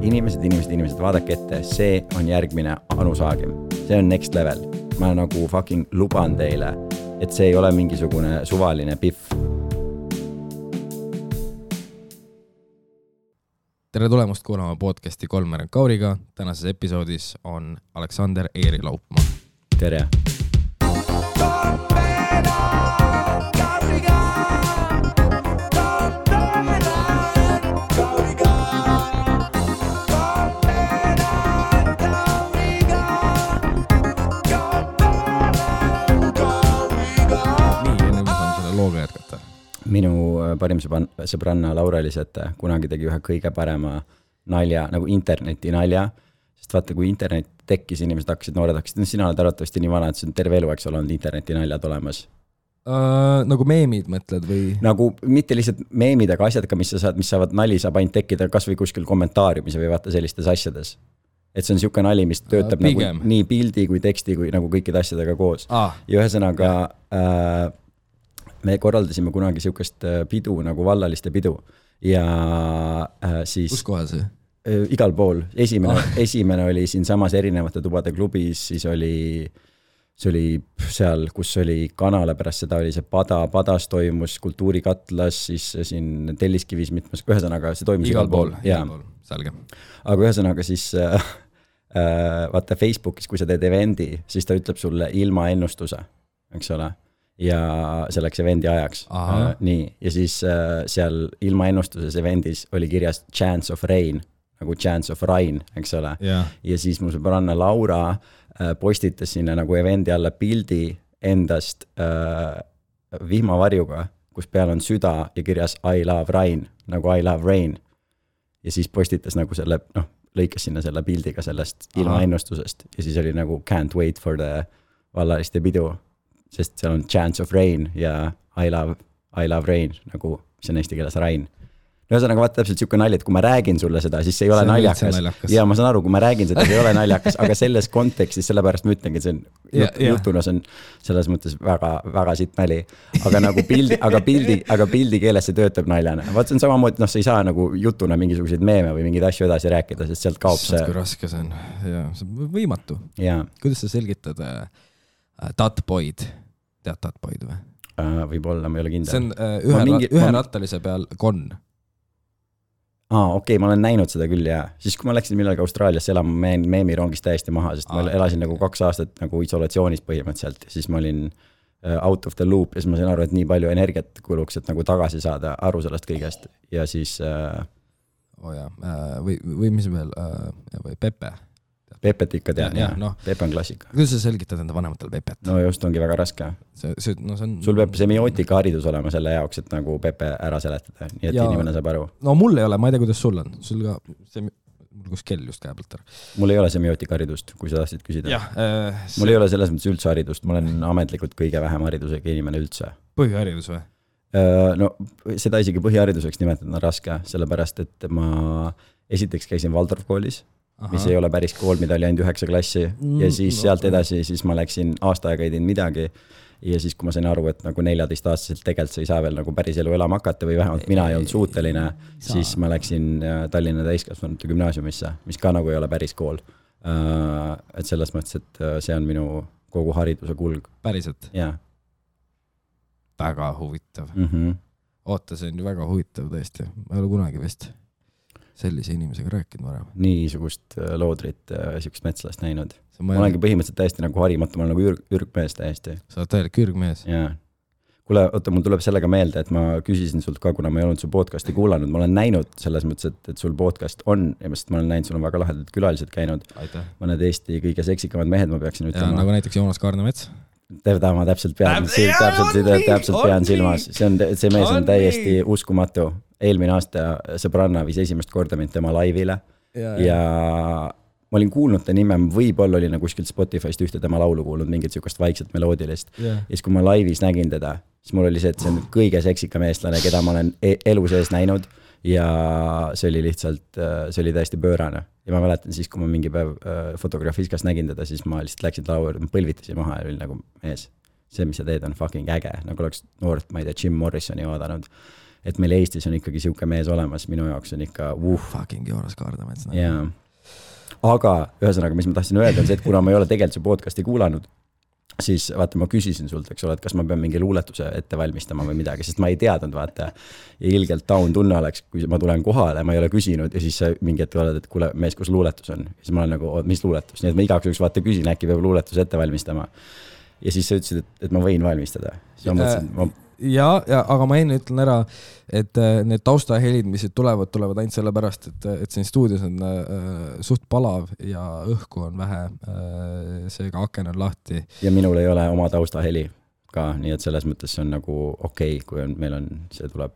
Inimesed, vaadake ette, see on järgmine Anu Saagim. See on next level. Ma nagu fucking luban teile, et see ei ole mingisugune suvaline piff. Tere tulemust kuulama podcasti Kolmer & Kauriga. Tänases episoodis on Aleksander Eeri Laupmaa. Tere! Minu parim sõbranna Laura Elisete kunagi tegi ühe kõige parema nalja, nagu interneti nalja, sest vaata, kui internet tekkis, inimesed noored hakkasid, sina oled arvatavasti nii vana, et see on terve elu, eks ole, olnud interneti naljad olemas. Nagu meemid mõtled või? Nagu mitte lihtsalt meemid, aga asjad ka, mis saavad nali, saab ainult tekkida kas või kuskil kommentaariumis või vaata sellistes asjades. Et see on siuke nali, mis töötab nagu nii pildi kui teksti kui nagu kõikide asjadega koos. Ja ühesõnaga me korraldasime kunagi siukest pidu nagu vallaliste pidu ja siis... Kus kohal see? Igal pool. Esimene oli siin samas erinevate tubade klubis, siis see oli seal, kus oli kanale, pärast seda oli see padas toimus, kultuurikatlas, siis siin Telliskivis mitmes, ühesõnaga see toimus igal pool. Selge. Aga ühesõnaga siis vaata Facebookis, kui sa teed evendi, siis ta ütleb sulle ilma ennustuse, eks ole? Ja selleks evendi ajaks. Nii. Ja siis seal ilma ennustuses evendis oli kirjas chance of rain, nagu chance of rain, eks ole. Ja siis mu sõbranna Laura postitas sinna nagu evendi alla pildi endast vihmavarjuga, kus peal on süda ja kirjas I love rain, nagu I love rain. Ja siis postitas nagu selle, lõikas sinna selle pildiga sellest ilma ennustusest. Ja siis oli nagu can't wait for the vallaliste pidu. Sest seal on chance of rain ja I love rain, nagu mis on eesti keeles rain. Ühesõnaga vaata täpselt siuke nali, et kui ma räägin sulle seda, siis see ei ole naljakas. Ja ma saan aru, kui ma räägin seda, see ei ole naljakas, aga selles kontekstis, sellepärast ma ütlengi, et see on jutuna, see on selles mõttes väga, väga sitt nali. Aga nagu pildi keeles see töötab naljana. Vaat see on samamoodi, sa ei saa nagu jutuna mingisuguseid meeme või mingeid asju edasi rääkida, sest sealt kaob see. Kui raske see on. See on võimatu. Kuidas sa selgitad Tatboid? Tead Tatboid või? Võib-olla, ma ei ole kindel. See on üherattalise peal Gon. Okei, ma olen näinud seda küll ja siis kui ma läksin millalgi Austraaliasse elama, meemirongist täiesti maha, sest ma elasin nagu 2 aastat nagu isolatsioonis põhimõtteliselt ja siis ma olin out of the loop ja siis ma sain aru, et nii palju energiat kuluks, et nagu tagasi saada aru sellest kõigest ja siis või mis veel või Pepe Pepet ikka tean, Pepe on klassika. Kuidas sa selgitad enda vanematele Pepet? No just ongi väga raske. Sul peab semiootika haridus olema selle jaoks, et nagu Pepe ära seletada, nii et inimene saab aru. No mul ei ole, ma ei tea, kuidas sul on. Sul ka, mul kus kell just käe pealt ära. Mul ei ole semiootika haridust, kui sa tahtsid küsida. Mul ei ole selles mõttes üldse haridust, ma olen ametlikult kõige vähem haridusega inimene üldse. Põhiharidus või? No seda isegi põhihariduseks nimetada on raske, sellepärast, et ma esiteks käisin Valdorf koolis, mis ei ole päris kool, mida oli ainult 9 klassi ja siis sealt edasi, siis ma läksin aasta aega ei teinud midagi ja siis kui ma sain aru, et nagu 14-aastaselt tegelikult sa ei saa veel nagu päris elu elama hakata või vähemalt mina ei olnud suuteline, siis ma läksin Tallinna täiskasvanute gümnaasiumisse, mis ka nagu ei ole päris kool. Et selles mõttes, et see on minu kogu hariduse kulg. Päriselt? Jaa. Väga huvitav. Oota, see on ju väga huvitav tõesti. Ma ei ole kunagi vist sellise inimesega rääkinud varem. Niisugust loodrit, niisugust metslast näinud. Ma olengi põhimõtteliselt täiesti nagu harimatu, ma olen nagu ürgmees täiesti. Sa oled täielik ürgmees? Jaa. Kuule, oota, mul tuleb sellega meelde, et ma küsisin sult ka, kuna ma ei olnud su podcasti kuulanud. Ma olen näinud selles mõttes, et sul podcast on, ja ma olen näinud, sul on väga lahedad külalised käinud. Aitäh. Mõned Eesti kõige seksikamad mehed, ma peaksin ütlema. Ja, nagu näiteks Joonas Kaarnemets. Teda ma täpselt pean silmas. See mees on täiesti uskumatu. Eelmine aasta sõbranna viis esimest korda mind tema laivile ja ma olin kuulnud ta nime, võib-olla oli nagu kuskilt Spotify'st ühte tema laulu kuulnud, mingit siukest vaikset meloodilist. Ja siis kui ma laivis nägin teda, siis mul oli see, et see on kõige seksikam eestlane, keda ma olen elu sees näinud ja see oli lihtsalt, see oli täiesti pöörane. Ja ma mäletan siis, kui ma mingi päev Fotografiskas nägin teda, siis ma lihtsalt läksin laua, ma põlvitasin maha ja oli nagu mees, see, mis sa teed, on fucking äge, nagu oleks noort, ma ei tea, Jim Morrisoni vaadanud. et meil Eestis on ikkagi siuke mees olemas, minu jaoks on ikka fucking Joonas Kaardamets. jaa. Aga ühesõnaga, mis ma tahtsin öelda, on see, et kuna ma ei ole tegelikult see podcasti kuulanud, siis vaata, ma küsisin sult, eks ole, et kas ma pean mingi luuletuse ette valmistama või midagi, sest ma ei teadnud, vaata. Ja ilgelt down tunne oleks, kui ma tulen kohale, ma ei ole küsinud ja siis sa mingi hetk oled, et kuule, mees, kus luuletus on? Ja siis ma olen nagu, mis luuletus? Nii et ma igaks juhuks vaata küsin, äkki peab luuletuse ette valmistama. Ja siis sa ütlesid, et ma võin valmistada. Siis ma mõtlesin, ja, aga ma enne ütlen ära, et need taustahelid, mis tulevad ainult selle pärast, et siin stuudios on suht palav ja õhku on vähe, seega aken on lahti. Ja minul ei ole oma taustaheli ka, nii et selles mõttes see on nagu okei, kui meil on, see tuleb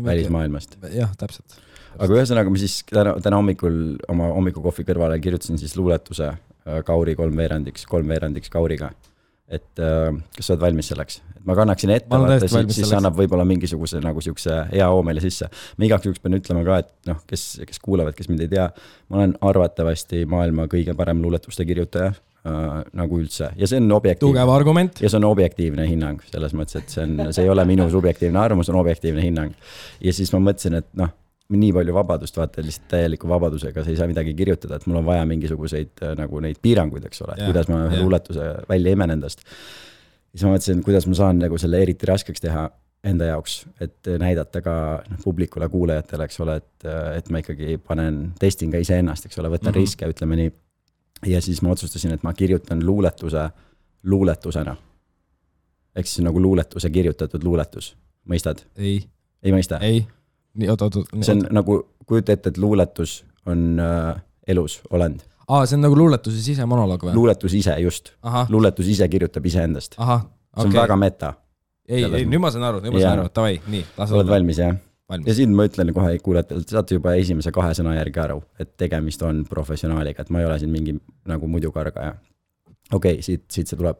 välismaailmast. Jah, täpselt. Aga ühesõnaga ma siis täna hommikul oma hommikukohvi kõrvale kirjutasin siis luuletuse Kauri 3/4 Kauriga. Et kas sa oled valmis selleks? Et ma kannaksin ette, siis annab võib-olla mingisuguse nagu siukse hea hoomele sisse. Ma igaks juhuks pean ütlema ka, et noh, kes kuulavad, kes mind ei tea, ma olen arvatavasti maailma kõige parem luuletuste kirjutaja nagu üldse. Ja see on objektiivne. Tugev argument. Ja see on objektiivne hinnang selles mõttes, et see ei ole minu subjektiivne arvamus, on objektiivne hinnang. Ja siis ma mõtlesin, et noh, nii palju vabadust, vaata lihtsalt täieliku vabadusega, sa ei saa midagi kirjutada, et mul on vaja mingisuguseid nagu neid piiranguid, eks ole, kuidas ma luuletuse välja imen endast. Siis ma mõtlesin, kuidas ma saan nagu selle eriti raskeks teha enda jaoks, et näidata ka publikule, kuulajatele, eks ole, et ma ikkagi testin ka ise ennast, eks ole, võtan riske, ütleme nii. Ja siis ma otsustasin, et ma kirjutan luuletuse luuletusena. Ehk siis nagu luuletuse kirjutatud luuletus. Mõistad? Ei mõista? Ei. See on nagu, kujuta ette, et luuletus on elus olend. See on nagu luuletuse sisemonoloog või? Luuletus ise, just. Luuletus ise kirjutab ise endast. See on väga meta. Ei, nüüd ma saan aru, tavai, nii. Oled valmis, jah? Ja siin ma ütlen kohe kuulajatele, saate juba esimese 2 sõna järgi aru, et tegemist on professionaaliga, et ma ei ole siin mingi nagu muidu kargaja. Okei, siit see tuleb.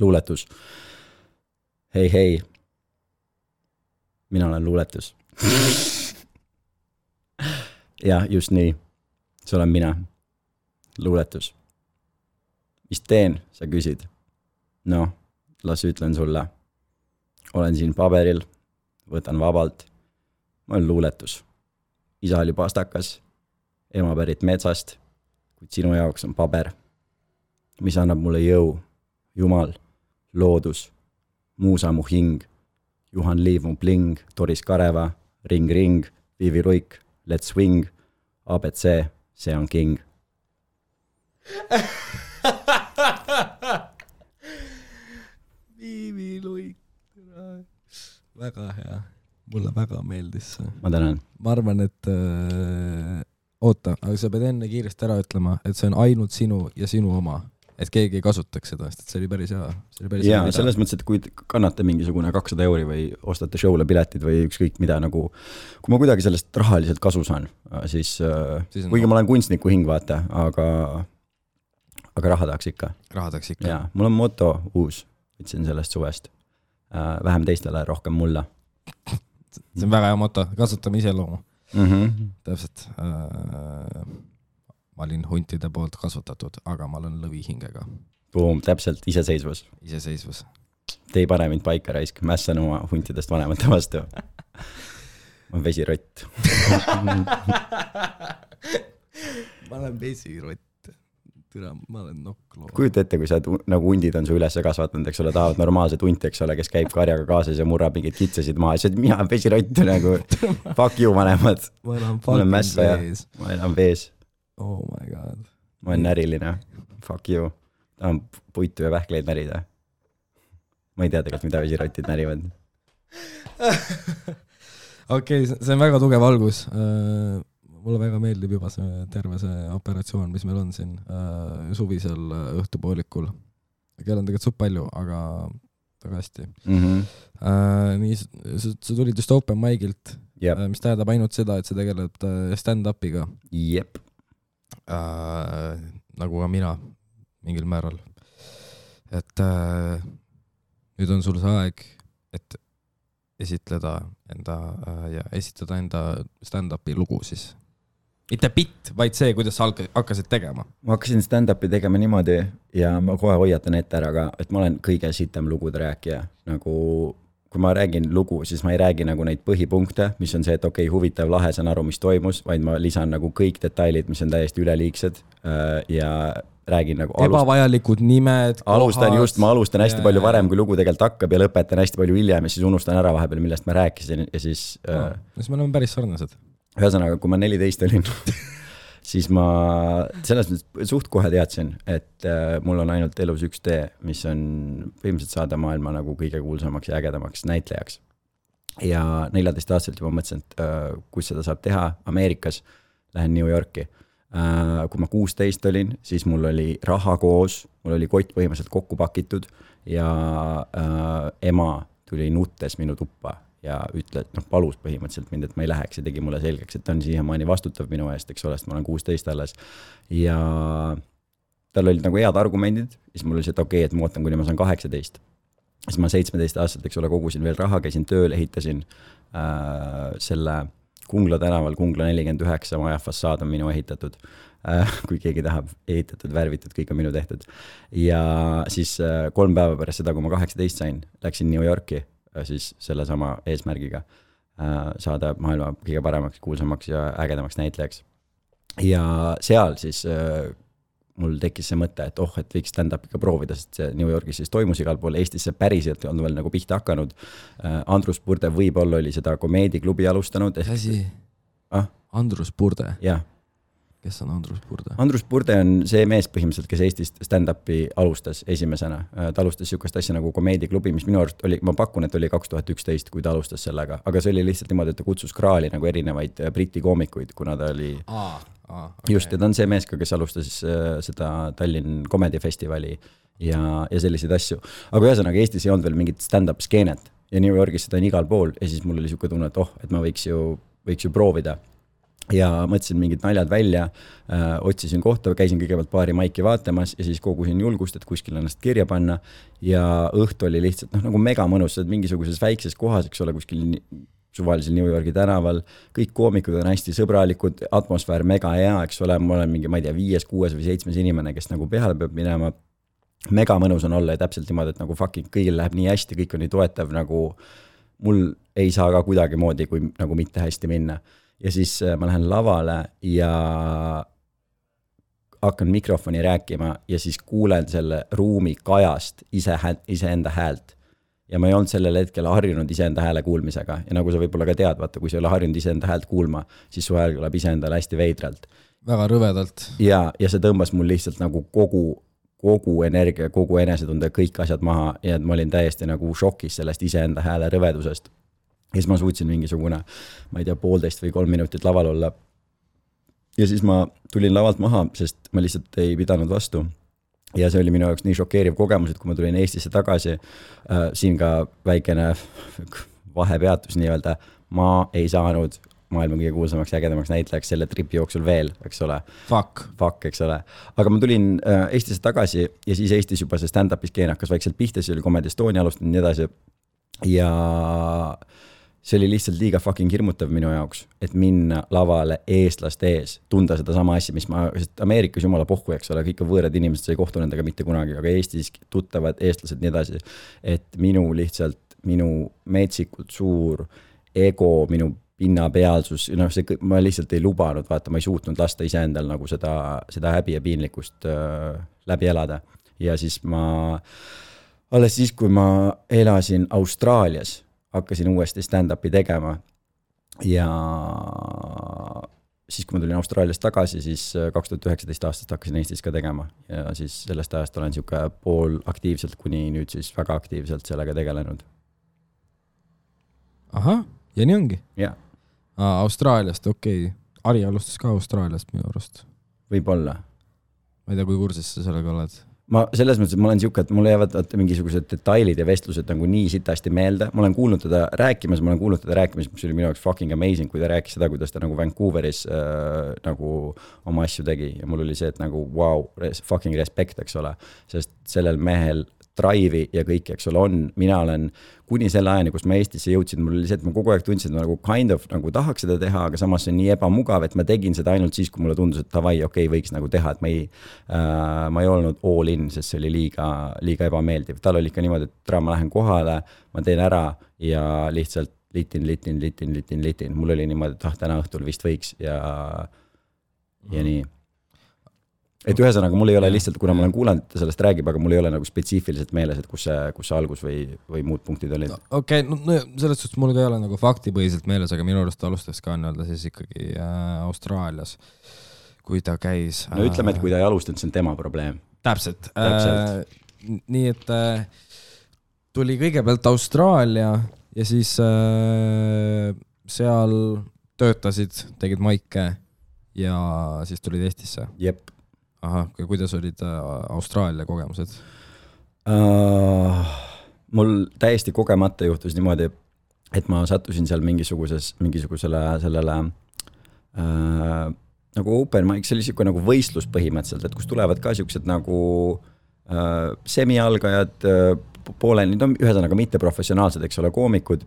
Luuletus. Hei. Mina olen luuletus. Ja, just nii. See olen mina. Luuletus. Mis teen, sa küsid? No, las ütlen sulle. Olen siin paberil, võtan vabalt. Ma olen luuletus. Isa oli pastakas, ema pärit metsast, kuid sinu jaoks on paber, mis annab mulle jõu, Jumal, loodus, muusa mu hing, Juhan Liiv mu bling, Doris Kareva, ring, Viivi Ruik, let's swing, ABC, see on king. Viivi Ruik, väga hea, mulle väga meeldis see. Ma tänan. Ma arvan, et oota, aga sa pead enne kiiresti ära ütlema, et see on ainult sinu ja sinu oma. Et keegi ei kasutaks seda, sest see oli päris hea. Ja selles mõttes, et kui kannate mingisugune 200 € või ostate show'le piletid või ükskõik mida nagu, kui ma kuidagi sellest rahaliselt kasu saan, siis kuigi ma olen kunstniku hing, vaata, aga raha tahaks ikka. Ja, mul on moto uus, ütlesin sellest suvest. Vähem teistele, rohkem mulla. See on väga hea moto, kasutame iseloomu. Täpselt. Ma olin huntide poolt kasvatatud, aga ma olen lõvihingega. Täpselt, iseseisvus. Te ei pane mind paika raisk, mässan oma huntidest vanemate vastu. Ma olen vesirott. Ma olen vesirott. Ma olen nokkloo. Kujuta ette, kui sa nagu hundid on su üles kasvatanud, eks ole, tahavad normaalset hunti, eks ole, kes käib karjaga kaasas ja murrab mingid kitsasid maha. Ja mina olen vesirott nagu, fuck you vanemad. Ma olen mässa ja ma elan vees. Oh my god. Ma olen näriline. Fuck you. Ta on puitu ja vähkleid närida. Ma ei tea tegelikult, mida vesirotid närivad. Okei, see on väga tugev algus. Mulle väga meeldib juba see terve see operatsioon, mis meil on siin suvisel õhtupoolikul. Kell on tegelikult suht palju, aga väga hästi. Nii, sa tulid just open mic'ilt, mis tähendab ainult seda, et sa tegeled stand-upiga. Jep. Nagu ka mina mingil määral. Et nüüd on sul see aeg, et esitada enda stand-upi lugu siis. Mitte bitt, vaid see, kuidas sa hakkasid tegema. Ma hakkasin stand-upi tegema niimoodi ja ma kohe hoiatan ette ära ka, et ma olen kõige sitem lugude rääkija. Nagu kui ma räägin lugu, siis ma ei räägi nagu neid põhipunkte, mis on see, et okei, huvitav, lahe, saan aru, mis toimus, vaid ma lisan nagu kõik detailid, mis on täiesti üleliigsed ja räägin nagu ebavajalikud nimed, kohad. Ma alustan hästi palju varem, kui lugu tegelikult hakkab ja lõpetan hästi palju hiljem ja siis unustan ära vahepeal, millest ma rääkisin ja siis siis me oleme päris sarnased. Ühesõnaga, kui ma 14 olin siis ma selles mõttes suht kohe teadsin, et mul on ainult elus üks tee, mis on põhimõtteliselt saada maailma nagu kõige kuulsamaks ja ägedamaks näitlejaks. Ja 14-aastaselt juba mõtlesin, et kus seda saab teha Ameerikas, lähen New Yorki. Kui ma 16 olin, siis mul oli raha koos, mul oli kott põhimõtteliselt kokku pakitud ja ema tuli nuttes minu tuppa ja ütles, palus põhimõtteliselt mind, et ma ei läheks ja tegi mulle selgeks, et ta on siiamaani vastutav minu eest, eks ole, sest ma olen 16 alles. Ja tal olid nagu head argumendid, siis mul oli see, et okei, et ma ootan, kuni ma saan 18. Siis ma 17-aastaselt, eks ole, kogusin veel raha, käisin tööl, ehitasin selle Kungla tänaval, Kungla 49 maja fassaad on minu ehitatud. Kui keegi tahab ehitatud, värvitud, kõik on minu tehtud. Ja siis 3 päeva pärast seda, kui ma 18 sain, läksin New Yorki siis selle sama eesmärgiga saada maailma kõige paremaks, kuulsamaks ja ägedamaks näitlejaks. Ja seal siis mul tekkis see mõte, et et võiks stand-up ikka proovida, sest see New Yorgis siis toimus igal pool, Eestis see päriselt on veel nagu pihta hakanud. Andrus Purde võib-olla oli seda komeediklubi alustanud. Mis asi? Andrus Purde? Jah. Kes on Andrus Purde? Andrus Purde on see mees põhimõtteliselt, kes Eestist stand-upi alustas esimesena. Ta alustas sihukest asja nagu komeediklubi, mis minu arust oli, ma pakun, et oli 2011, kui ta alustas sellega, aga see oli lihtsalt niimoodi, et ta kutsus kraali nagu erinevaid briti koomikuid, kuna ta oli okay. Just, ja ta on see mees ka, kes alustas seda Tallinn Comedy Festivali ja selliseid asju. Aga ühesõnaga Eestis ei olnud veel mingit stand-up skeenet ja New Yorgis seda on igal pool ja siis mul oli sihuke tunne, et et ma võiks ju proovida. Ja mõtlesin mingid naljad välja, otsisin kohta, käisin kõigepealt paari maiki vaatamas ja siis kogusin julgust, et kuskil ennast kirja panna ja õhtu oli lihtsalt nagu mega mõnus, mingisuguses väikses kohas, eks ole, kuskil suvalisel New Yorgi tänaval, kõik koomikud on hästi sõbralikud, atmosfäär mega hea, eks ole, ma olen mingi, ma ei tea, 5, 6 või 7 inimene, kes nagu peale peab minema, mega mõnus on olla ja täpselt niimoodi, et nagu fucking kõigil läheb nii hästi, kõik on nii toetav, nagu mul ei saa ka kuidagi moodi, kui nagu mitte hästi minna. Ja siis ma lähen lavale ja hakkan mikrofoni rääkima ja siis kuulen selle ruumi kajast iseenda häält. Ja ma ei olnud sellel hetkel harjunud iseenda hääle kuulmisega. Ja nagu sa võib-olla ka tead, vaata, kui sa ei ole harjunud iseenda häält kuulma, siis su hääl tuleb iseendale hästi veidralt. Väga rõvedalt. Ja see tõmbas mul lihtsalt nagu kogu energia, kogu enesetunde, kõik asjad maha ja ma olin täiesti nagu šokis sellest iseenda hääle rõvedusest. Ja siis ma suutsin mingisugune, ma ei tea, 1,5 või 3 minutit laval olla. Ja siis ma tulin lavalt maha, sest ma lihtsalt ei pidanud vastu. Ja see oli minu jaoks nii šokeeriv kogemus, et kui ma tulin Eestisse tagasi, siin ka väikene vahepeatus nii-öelda, ma ei saanud maailma kõige kuulsamaks ja ägedamaks näitlejaks selle tripi jooksul veel, eks ole. Fuck, eks ole. Aga ma tulin Eestisse tagasi ja siis Eestis juba see stand-upi skeen hakkas vaikselt pihta, see oli Comedy Estonia alustanud nii edasi. Ja see oli lihtsalt liiga fucking hirmutav minu jaoks, et minna lavale eestlaste ees, tunda seda sama asja, mis sest Ameerikas jumala pohku, eks ole, kõik on võõrad inimesed, sa ei kohtu nendega mitte kunagi, aga Eestis tuttavad eestlased nii edasi, et minu metsikult suur ego, minu pinnapealsus, ma lihtsalt ei lubanud, vaata, ma ei suutnud lasta iseendal nagu seda häbi ja piinlikkust läbi elada. Ja siis alles siis, kui ma elasin Austraalias, hakkasin uuesti stand-upi tegema ja siis, kui ma tulin Austraaliast tagasi, siis 2019 aastast hakkasin Eestis ka tegema ja siis sellest ajast olen siuke pool aktiivselt kuni nüüd siis väga aktiivselt sellega tegelenud. Aha, ja nii ongi? Jah. Austraaliast, okei. Ari alustas ka Austraaliast minu arust. Võib-olla. Ma ei tea, kui kursis sa sellega oled. Ma selles mõttes, et ma olen siuke, et mulle jäävad mingisugused detailid ja vestlused nagu nii sitasti meelde. Ma olen kuulnud teda rääkimas, mis oli minu jaoks fucking amazing, kui ta rääkis seda, kuidas ta nagu Vancouveris nagu oma asju tegi. Ja mul oli see, et nagu wow, fucking respect, eks ole. Sest sellel mehel drive'i ja kõik, eks ole, mina olen kuni selle ajani, kus ma Eestisse jõudsin, mul oli see, et ma kogu aeg tundsin, et ma nagu kind of nagu tahaks seda teha, aga samas see on nii ebamugav, et ma tegin seda ainult siis, kui mulle tundus, et davai, okei, võiks nagu teha, et ma ei olnud all in, sest see oli liiga ebameeldiv. Tal oli ikka niimoodi, et ma lähen kohale, ma teen ära ja lihtsalt litin. Mul oli niimoodi, et täna õhtul vist võiks ja nii. Et ühesõnaga, mul ei ole lihtsalt, kuna ma olen kuulanud, et sellest räägib, aga mul ei ole nagu spetsiifiliselt meeles, et kus see algus või muud punktid olid. Okei, no selles suhtes mul ka ei ole nagu faktipõhiselt meeles, aga minu arust alustas ka nii-öelda siis ikkagi Austraalias, kui ta käis. No ütleme, et kui ta ei alustanud, see on tema probleem. Täpselt. Nii, et tuli kõigepealt Austraalia ja siis seal töötasid, tegid maike ja siis tulid Eestisse. Jep. Aha, kuidas olid Austraalia kogemused? Mul täiesti kogemata juhtus niimoodi, et ma sattusin seal mingisugusele sellele nagu open mic, see oli siuke nagu võistlus põhimõtteliselt, et kus tulevad ka siuksed nagu semialgajad, pooleni, ühesõnaga mitte professionaalsed, eks ole, koomikud.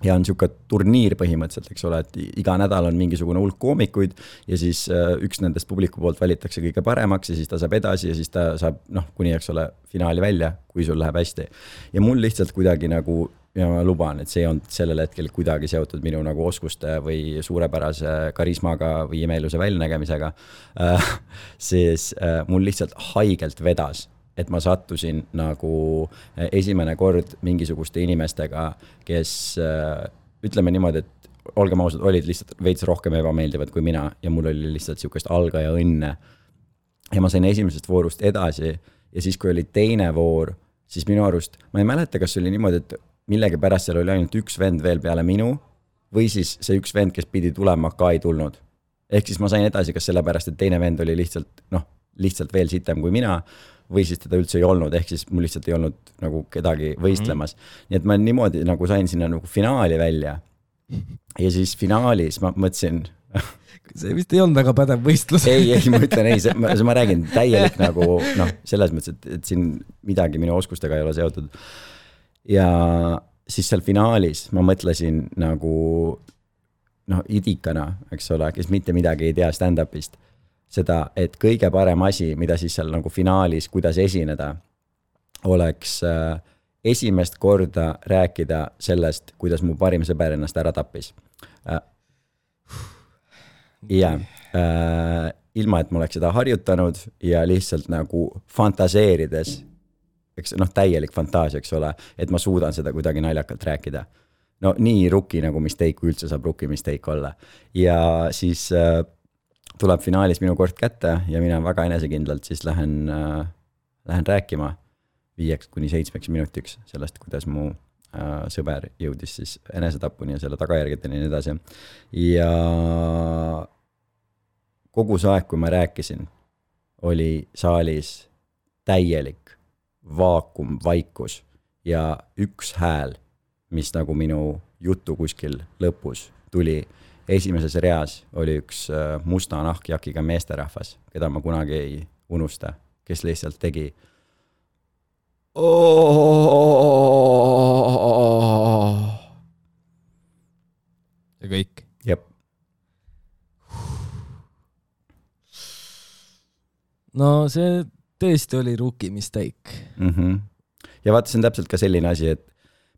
Ja on siuke turniir põhimõtteliselt, eks ole, et iga nädal on mingisugune hulk koomikuid ja siis üks nendest publiku poolt valitakse kõige paremaks ja siis ta saab edasi ja siis ta saab, kuni, eks ole, finaali välja, kui sul läheb hästi. Ja mul lihtsalt kuidagi nagu, ja ma luban, et see on sellel hetkel kuidagi seotud minu nagu oskuste või suurepärase karismaga või imeiluse väljanägemisega, siis mul lihtsalt haigelt vedas, et ma sattusin nagu esimene kord mingisuguste inimestega, kes ütleme niimoodi, et olgem ausad, olid lihtsalt veits rohkem ebameeldivad kui mina ja mul oli lihtsalt siukest algaja õnne. Ja ma sain esimesest voorust edasi ja siis, kui oli teine voor, siis minu arust, ma ei mäleta, kas oli niimoodi, et millegi pärast seal oli ainult üks vend veel peale minu või siis see üks vend, kes pidi tulema, ka ei tulnud. Ehk siis ma sain edasi, kas sellepärast, et teine vend oli lihtsalt veel sitem kui mina või siis teda üldse ei olnud, ehk siis mul lihtsalt ei olnud nagu kedagi võistlemas. Nii et ma niimoodi nagu sain sinna nagu finaali välja. Ja siis finaalis ma mõtlesin... See vist ei olnud väga pädev võistlus. Ei, ma ütlen, ma räägin täielik nagu, selles mõttes, et siin midagi minu oskustega ei ole seotud. Ja siis seal finaalis ma mõtlesin nagu idikana, eks ole, kes mitte midagi ei tea stand-upist. Seda, et kõige parem asi, mida siis seal nagu finaalis, kuidas esineda, oleks esimest korda rääkida sellest, kuidas mu parim sõber ennast ära tappis. Ja ilma, et ma oleks seda harjutanud ja lihtsalt nagu fantaseerides, eks, täielik fantaasia, eks ole, et ma suudan seda kuidagi naljakalt rääkida. No nii rookie nagu mistake, kui üldse saab rookie mistake olla. Ja siis... tuleb finaalis minu kord kätte ja mina väga enesekindlalt siis lähen rääkima 5-7 minutiks sellest, kuidas mu sõber jõudis siis enesetapuni ja selle tagajärgedeni ja nii edasi. Ja kogu see aeg, kui ma rääkisin, oli saalis täielik vaakum, vaikus ja üks hääl, mis nagu minu jutu kuskil lõpus tuli. Esimeses reas oli üks musta nahkjakiga meesterahvas, keda ma kunagi ei unusta, kes lihtsalt tegi. Ja kõik. Jep. No see tõesti oli rookie mistake. Ja vaata, see on täpselt ka selline asi, et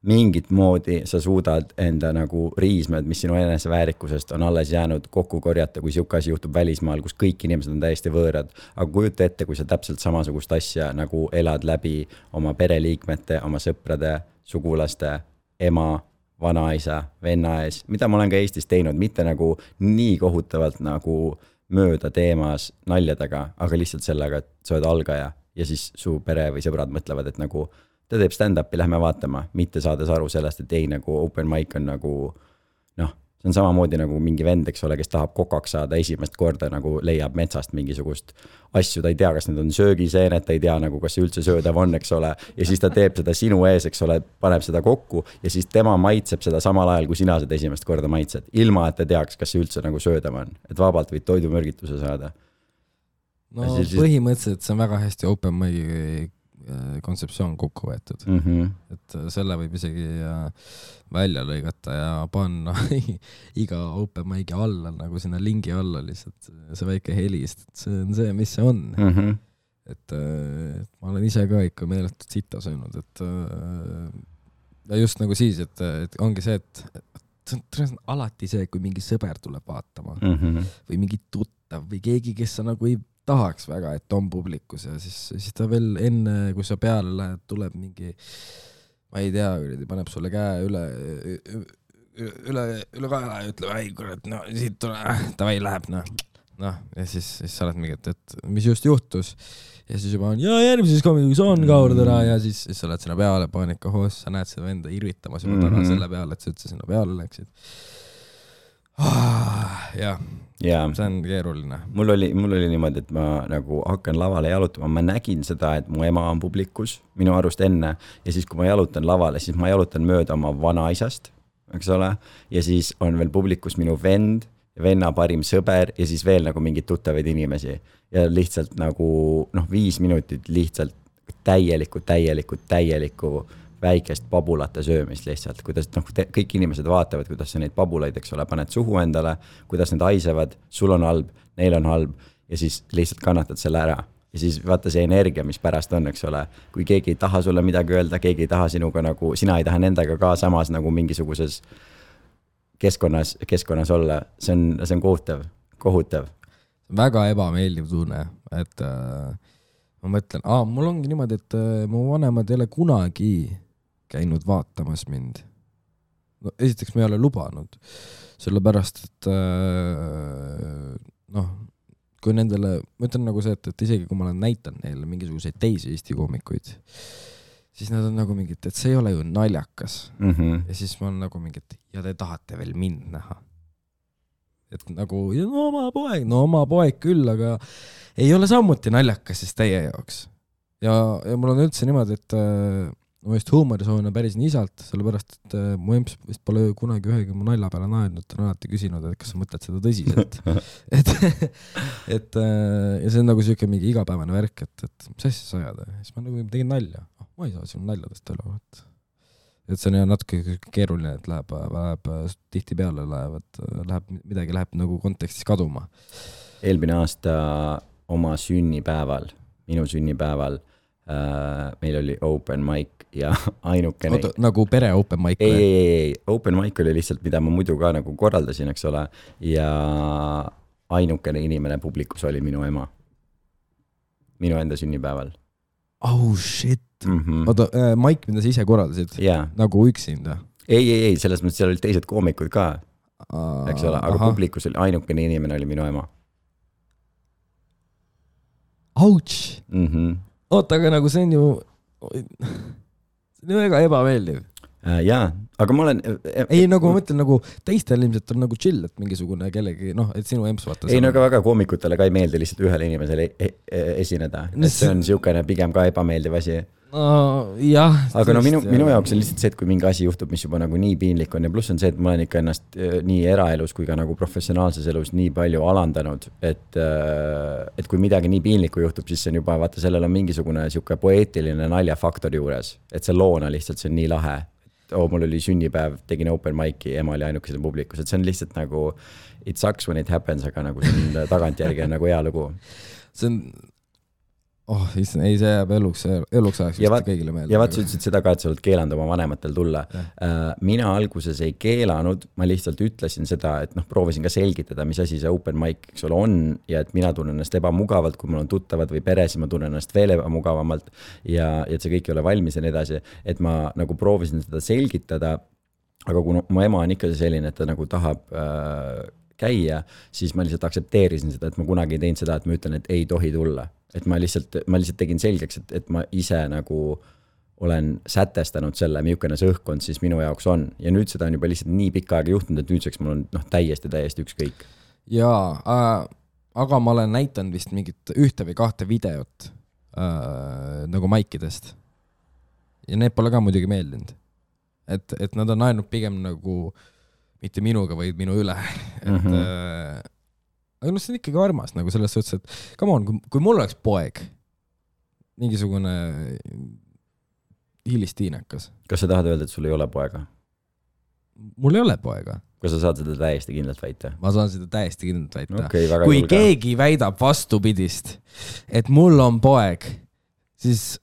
mingit moodi sa suudad enda nagu riismed, mis sinu eneseväärikusest on alles jäänud kokku korjata, kui siuke asi juhtub välismaal, kus kõik inimesed on täiesti võõrad. Aga kujuta ette, kui sa täpselt samasugust asja nagu elad läbi oma pereliikmete, oma sõprade, sugulaste, ema, vanaisa, venna ees, mida ma olen ka Eestis teinud, mitte nagu nii kohutavalt nagu mööda teemas naljadega, aga lihtsalt sellega, et sa oled algaja ja siis su pere või sõbrad mõtlevad, et nagu ta teeb stand-upi, lähme vaatama, mitte saades aru sellest, et ei nagu open mic on nagu, see on samamoodi nagu mingi vend, eks ole, kes tahab kokaks saada esimest korda, nagu leiab metsast mingisugust asju, ta ei tea, kas need on söögiseened, ta ei tea nagu, kas see üldse söödav on, eks ole, ja siis ta teeb seda sinu ees, eks ole, paneb seda kokku ja siis tema maitseb seda samal ajal, kui sina seda esimest korda maitsed, ilma et ta teaks, kas see üldse nagu söödav on, et vabalt võid toidumürgituse saada. No põhimõtteliselt see on väga hästi open mic kontseptsioon kokku võetud. Et selle võib isegi välja lõigata ja panna iga open mic'i alla nagu sinna lingi alla lihtsalt see väike helist, et see on see, mis see on. Et ma olen ise ka ikka meeletult sita söönud, et ja just nagu siis, et ongi see, et see on alati see, kui mingi sõber tuleb vaatama või mingi tuttav või keegi, kes sa nagu ei tahaks väga, et on publikus ja siis ta veel enne, kui sa peale lähed, tuleb mingi, ma ei tea, paneb sulle käe üle kaela ja ütleb, ei kurat, no siit tule, tavai läheb, noh, ja siis sa oled mingi, et mis just juhtus ja siis juba on, ja järgmises komikuks on kaurdera ja siis sa oled sinna peale paanika hoos, sa näed seda venda irvitamas juba täna selle peale, et sa üldse sinna peale läksid. Jah, see on keeruline. Mul oli niimoodi, et ma nagu hakkan lavale jalutama, ma nägin seda, et mu ema on publikus minu arust enne ja siis kui ma jalutan lavale, siis ma jalutan mööda oma vanaisast, eks ole, ja siis on veel publikus minu vend, venna parim sõber ja siis veel nagu mingid tuttavaid inimesi ja lihtsalt nagu 5 minutit lihtsalt täielikku väikest pabulate söömist lihtsalt, kuidas kõik inimesed vaatavad, kuidas sa neid pabulaid, eks ole, paned suhu endale, kuidas need haisevad, sul on halb, neil on halb ja siis lihtsalt kannatad selle ära. Ja siis vaata see energia, mis pärast on, eks ole, kui keegi ei taha sulle midagi öelda, keegi ei taha sinuga nagu, sina ei taha nendega ka samas nagu mingisuguses keskkonnas olla, see on kohutav. Väga ebameeldiv tunne, et ma mõtlen, mul ongi niimoodi, et mu vanemad ei ole kunagi käinud vaatamas mind. No, esiteks ma ei ole lubanud, sellepärast, et kui nendele, ma ütlen nagu see, et isegi kui ma olen näitan neile mingisuguseid teisi Eesti koomikuid, siis nad on nagu mingid, et see ei ole ju naljakas. Ja siis ma olen nagu mingid, ja te tahate veel mind näha. Et nagu, oma poeg küll, aga ei ole sammuti naljakas siis teie jaoks. Ja mul on üldse niimoodi, et ma just huumorisoon on päris nii isalt, sellepärast, et mu emps vist pole kunagi ühegi mu nalja peale naednud, ta on alati küsinud, et kas sa mõtled seda tõsiselt. Ja see on nagu selline mingi igapäevane värk, et mis asja sa ajad? Siis ma nagu tegin nalja. Ma ei saa sinu naljadest üle. Et see on natuke keeruline, et läheb tihti peale midagi läheb nagu kontekstis kaduma. Eelmine aasta oma sünnipäeval, minu sünnipäeval, meil oli open mic ja ainukene... Oota, nagu pere open mic? Ei, open mic oli lihtsalt, mida ma muidu ka nagu korraldasin, eks ole, ja ainukene inimene publikus oli minu ema. Minu enda sünnipäeval. Oh shit! Oota, Mike, mida sa ise korraldasid? Nagu üksinda? Ei, selles mõttes seal olid teised koomikud ka, eks ole, aga publikus oli ainukene inimene oli minu ema. Ouch! Oota, aga nagu see on ju väga ebameeldiv. Jaa, aga ma olen... Ei, nagu ma mõtlen, nagu teistel ilmselt on nagu chill, et mingisugune kellegi, et sinu emps vaata... Ei, no aga väga koomikutele ka ei meeldi lihtsalt ühele inimesele esineda. Et see on siukene pigem ka ebameeldiv asi. Jah. Aga no minu jaoks on lihtsalt see, et kui mingi asi juhtub, mis juba nagu nii piinlik on ja pluss on see, et ma olen ikka ennast nii eraelus kui ka nagu professionaalses elus nii palju alandanud, et kui midagi nii piinlikku juhtub, siis see on juba, vaata, sellel on mingisugune siuke poeetiline naljafaktor juures, et see loona lihtsalt, see on nii lahe. Mul oli sünnipäev, tegin open mic'i, ema oli ainukesel publikus, et see on lihtsalt nagu it sucks when it happens, aga nagu see on tagantjärgi on nagu hea lugu. See on ei, see jääb eluks ajaks kõigile meelde. Ja vaat sa ütlesid seda ka, et sa oled keelanud oma vanematel tulla. Mina alguses ei keelanud, ma lihtsalt ütlesin seda, et proovisin ka selgitada, mis asi see open mic on ja et mina tunnen ennast ebamugavalt, kui mul on tuttavad või pere, siis ma tunnen ennast veel ebamugavamalt ja et see kõik ei ole valmis ja nii edasi, et ma nagu proovisin seda selgitada, aga kui mu ema on ikka selline, et ta nagu tahab käia, siis ma lihtsalt aksepteerisin seda, et ma kunagi ei teinud seda, et ma ütlen, et ei tohi tulla. Et ma lihtsalt tegin selgeks, et ma ise nagu olen sätestanud selle, milline see õhkkond siis minu jaoks on. Ja nüüd seda on juba lihtsalt nii pikka aega juhtunud, et nüüdseks mul on täiesti ükskõik. Jaa, aga ma olen näitanud vist mingit 1 või 2 videot nagu maikidest. Ja need pole ka muidugi meeldinud. Et nad on ainult pigem nagu mitte minuga, vaid minu üle. Aga see on ikkagi armas nagu selles suhtes, et come on, kui mul oleks poeg, mingisugune hilistiinekas. Kas sa tahad öelda, et sul ei ole poega? Mul ei ole poega. Kas sa saad seda täiesti kindlalt väita? Ma saan seda täiesti kindlalt väita. Okay, kui keegi väidab vastupidist, et mul on poeg, siis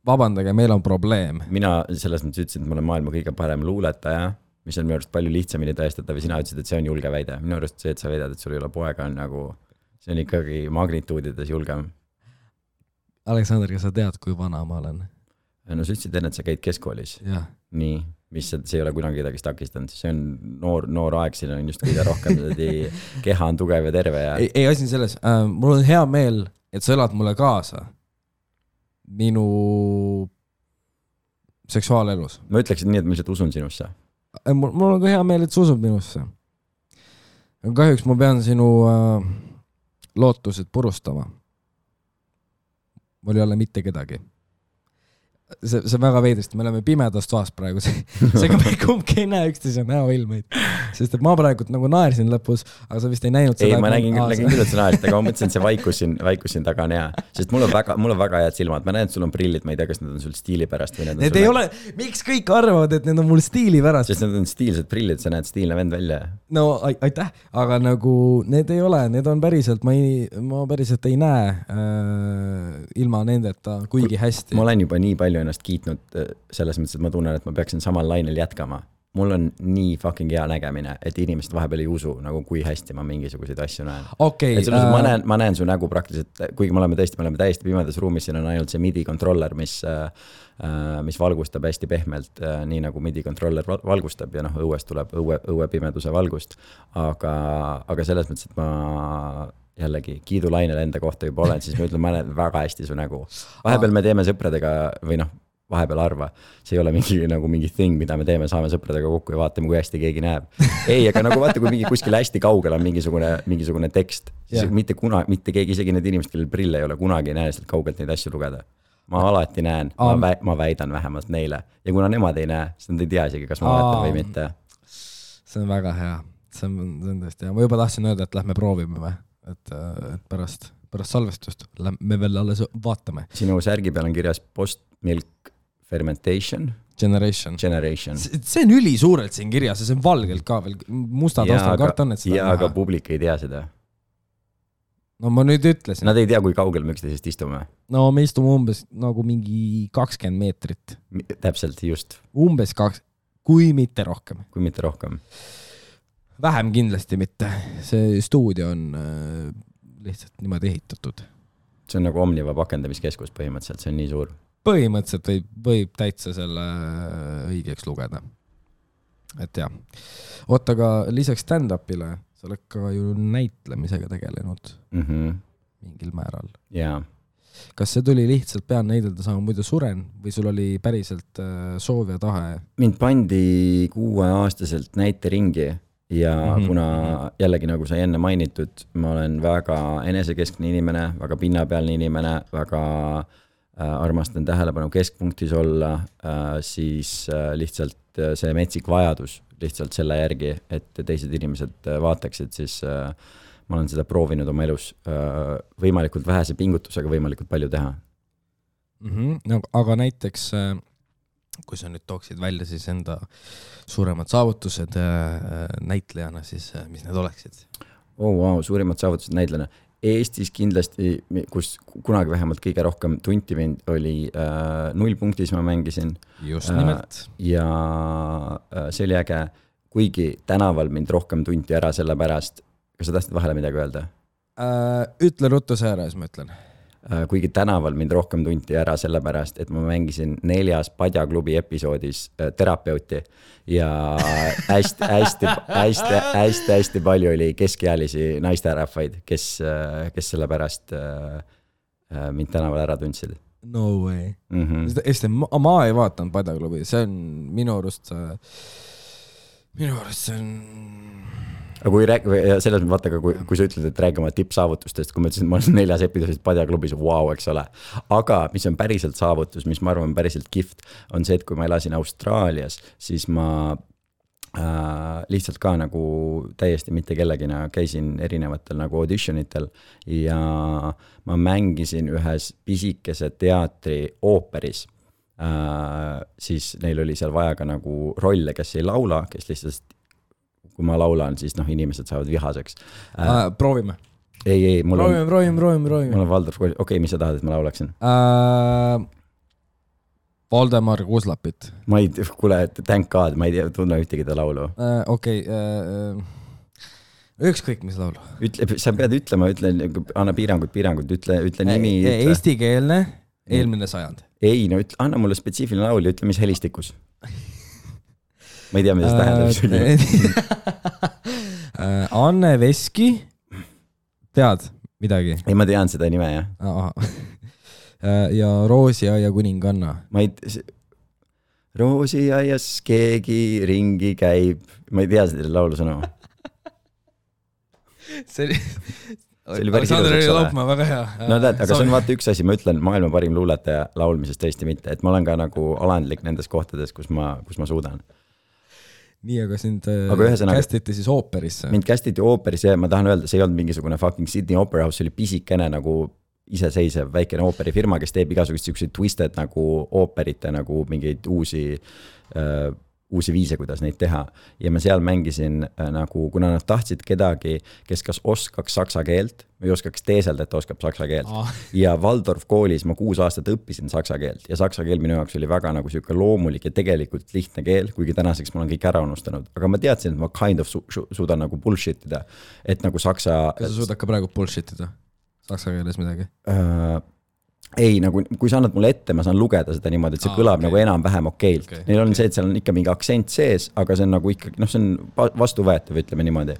vabandage, meil on probleem. Mina selles mõttes ütlesin, et ma olen maailma kõige parem luuletaja, mis on minu arust palju lihtsamini tõestatav ja sina ütlesid, et see on julge väide. Minu arust see, et sa väidad, et sul ei ole poega, on nagu, see on ikkagi magnituudides julgem. Aleksander, kas sa tead, kui vana ma olen? No sa ütlesid enne, et sa käid keskkoolis. Ja. Nii, mis see ei ole kunagi kedagi takistanud. See on noor aeg, siin on just kõige rohkem keha on tugev ja terve. Ja... Ei asi selles. Mul on hea meel, et sa elad mulle kaasa minu seksuaalelus. Ma ütleksin nii, et ma lihtsalt usun sinusse. Mul on ka hea meel, et sa usud minusse. Kahjuks ma pean sinu lootused purustama. Mul ei ole mitte kedagi. See on väga veidrist, me oleme pimedas toas praegu, seega me kumbki ei näe üksteise näoilmeid, sest et ma praegu nagu naersin lõpus, aga sa vist ei näinud seda. Ei, ma nägin küll, et sa naersid, aga ma mõtlesin, et see vaikus siin taga on hea, sest mul on väga head silmad, ma näen, et sul on prillid, ma ei tea, kas need on sul stiili pärast või need ei ole, miks kõik arvavad, et need on mul stiili pärast? Sest need on stiilsed prillid, sa näed stiilne vend välja. No aitäh, aga nagu need ei ole, need on päriselt, ma päriselt ei näe ilma nendeta kuigi hästi. Ma olen juba nii palju ennast kiitnud selles mõttes, et ma tunnen, et ma peaksin samal lainel jätkama. Mul on nii fucking hea nägemine, et inimesed vahepeal ei usu, nagu kui hästi ma mingisuguseid asju näen. Okay, ma näen su nägu praktiliselt, kuigi me oleme täiesti pimedas ruumis, siin on ainult see MIDI controller, mis valgustab hästi pehmelt, nii nagu MIDI controller valgustab ja õuest tuleb õue pimeduse valgust. Aga selles mõttes, et ma jällegi kiidulainel enda kohta juba olen, siis ma ütlen, ma näen väga hästi su nägu. Vahepeal me teeme sõpradega või vahepeal arva. See ei ole mingi thing, mida me teeme, saame sõpradega kokku ja vaatame, kui hästi keegi näeb. Ei, aga nagu vaata, kui kuskil hästi kaugel on mingisugune tekst, siis mitte keegi, isegi need inimesed, kellel prille ei ole, kunagi ei näe sealt kaugelt neid asju lugeda. Ma alati näen, ma väidan vähemalt neile. Ja kuna nemad ei näe, siis nad ei tea isegi, kas ma valetan või mitte. See on väga hea. See on tõesti hea. Ma juba tahtsin öelda, et lähme proovime, et pärast salvestust me veel alles vaatame. Sinu särgi peal on kirjas post-milk fermentation generation. See on üli suurelt siin kirjas ja see on valgelt ka veel musta taustal karton, et seda ja, aga publik ei tea seda. No ma nüüd ütlesin. Nad ei tea, kui kaugel me üksteisest istume. No me istume umbes nagu mingi 20 meetrit. Täpselt, just. Umbes 2, kui mitte rohkem. Kui mitte rohkem. Vähem kindlasti mitte. See stuudio on lihtsalt niimoodi ehitatud. See on nagu Omniva pakendamiskeskus põhimõtteliselt, see on nii suur. Põhimõtteliselt võib täitsa selle õigeks lugeda. Et jah. Oota, aga lisaks stand-upile sa oled ka ju näitlemisega tegelenud mingil määral. Jaa. Kas see tuli lihtsalt pean näidelda sama muidu suren või sul oli päriselt soov ja tahe? Mind pandi 6-aastaselt näiteringi ja kuna jällegi nagu sai enne mainitud, ma olen väga enesekeskne inimene, väga pinnapealne inimene, väga armastan tähelepanu keskpunktis olla, siis lihtsalt see metsik vajadus lihtsalt selle järgi, et teised inimesed vaataksid, siis ma olen seda proovinud oma elus võimalikult vähese pingutusega võimalikult palju teha. No, aga näiteks, kui sa nüüd tooksid välja siis enda suuremad saavutused näitlejana, siis mis need oleksid? Wow, suurimad saavutused näitlejana. Eestis kindlasti, kus kunagi vähemalt kõige rohkem tunti mind, oli 0 punktis ma mängisin. Just nimelt. Ja see oli äge, kuigi tänaval mind rohkem tunti ära selle pärast. Kas sa tahtsid vahele midagi öelda? Ütle ruttu see ära, siis ma ütlen. Kuigi tänaval mind rohkem tunti ära selle pärast, et ma mängisin 4. Padjaklubi episoodis terapeuti ja hästi palju oli keskealisi naisterahvaid, kes selle pärast mind tänaval ära tundsid. No way. Ma ei vaatanud Padjaklubi, see on minu arust see on... Aga selles mõttes vaata, kui sa ütled, et räägi oma tippsaavutustest, kui ma ütlesin, et ma olen 4. episoodis Padjaklubis, wow, eks ole. Aga mis on päriselt saavutus, mis ma arvan päriselt kihvt, on see, et kui ma elasin Austraalias, siis ma lihtsalt ka nagu täiesti mitte kellegina käisin erinevatel nagu auditionitel ja ma mängisin ühes pisikese teatri ooperis. Siis neil oli seal vaja ka nagu rolle, kes ei laula, kes lihtsalt, kui ma laulan, siis inimesed saavad vihaseks. Proovime. Ei, mul proovime. Mul on Valdorf Kooli, okei, mis sa tahad, et ma laulaksin? Valdemar Kuslapit. Ma ei, kuule, thank God, ma ei tunne ühtegi ta laulu. Okei, ükskõik mis laulu. Sa pead ütlema, anna piirangud, ütle nimi. Eestikeelne, eelmine sajand. Ei, no anna mulle spetsiifiline laul ja ütle, mis helistikus. Ma ei tea, mida see tähendab. Anne Veski, tead midagi? Ei, ma tean seda nime, jah. Ja Roosiaia kuninganna. Roosiaias keegi ringi käib. Ma ei tea seda laulu sõnu. See oli päris ilus, Laupmaa, väga hea. No tead, aga see on vaata üks asi, ma ütlen maailma parim luuletaja laulmisest tõesti mitte, et ma olen ka nagu alandlik nendes kohtades, kus ma suudan. Nii, aga sind kästiti siis ooperisse? Mind kästiti ooperisse ja ma tahan öelda, see ei olnud mingisugune fucking Sydney Opera House, see oli pisikene nagu iseseisev väikene ooperifirma, kes teeb igasugust siukseid twisted nagu ooperite nagu mingeid uusi viise, kuidas neid teha. Ja ma seal mängisin nagu, kuna nad tahtsid kedagi, kes kas oskaks saksa keelt või oskaks teeselda, et oskab saksa keelt. Ja Waldorf koolis ma 6 aastat õppisin saksa keelt ja saksa keel minu jaoks oli väga nagu siuke loomulik ja tegelikult lihtne keel, kuigi tänaseks ma olen kõik ära unustanud. Aga ma teadsin, et ma kind of suudan nagu bullshitida, et nagu saksa... Kas sa suudad ka praegu bullshitida? Saksa keeles midagi? Ei, nagu kui sa annad mulle ette, ma saan lugeda seda niimoodi, et see kõlab nagu enam-vähem okeilt. Neil on see, et seal on ikka mingi aktsent sees, aga see on nagu ikka, see on vastuvõetav, ütleme niimoodi.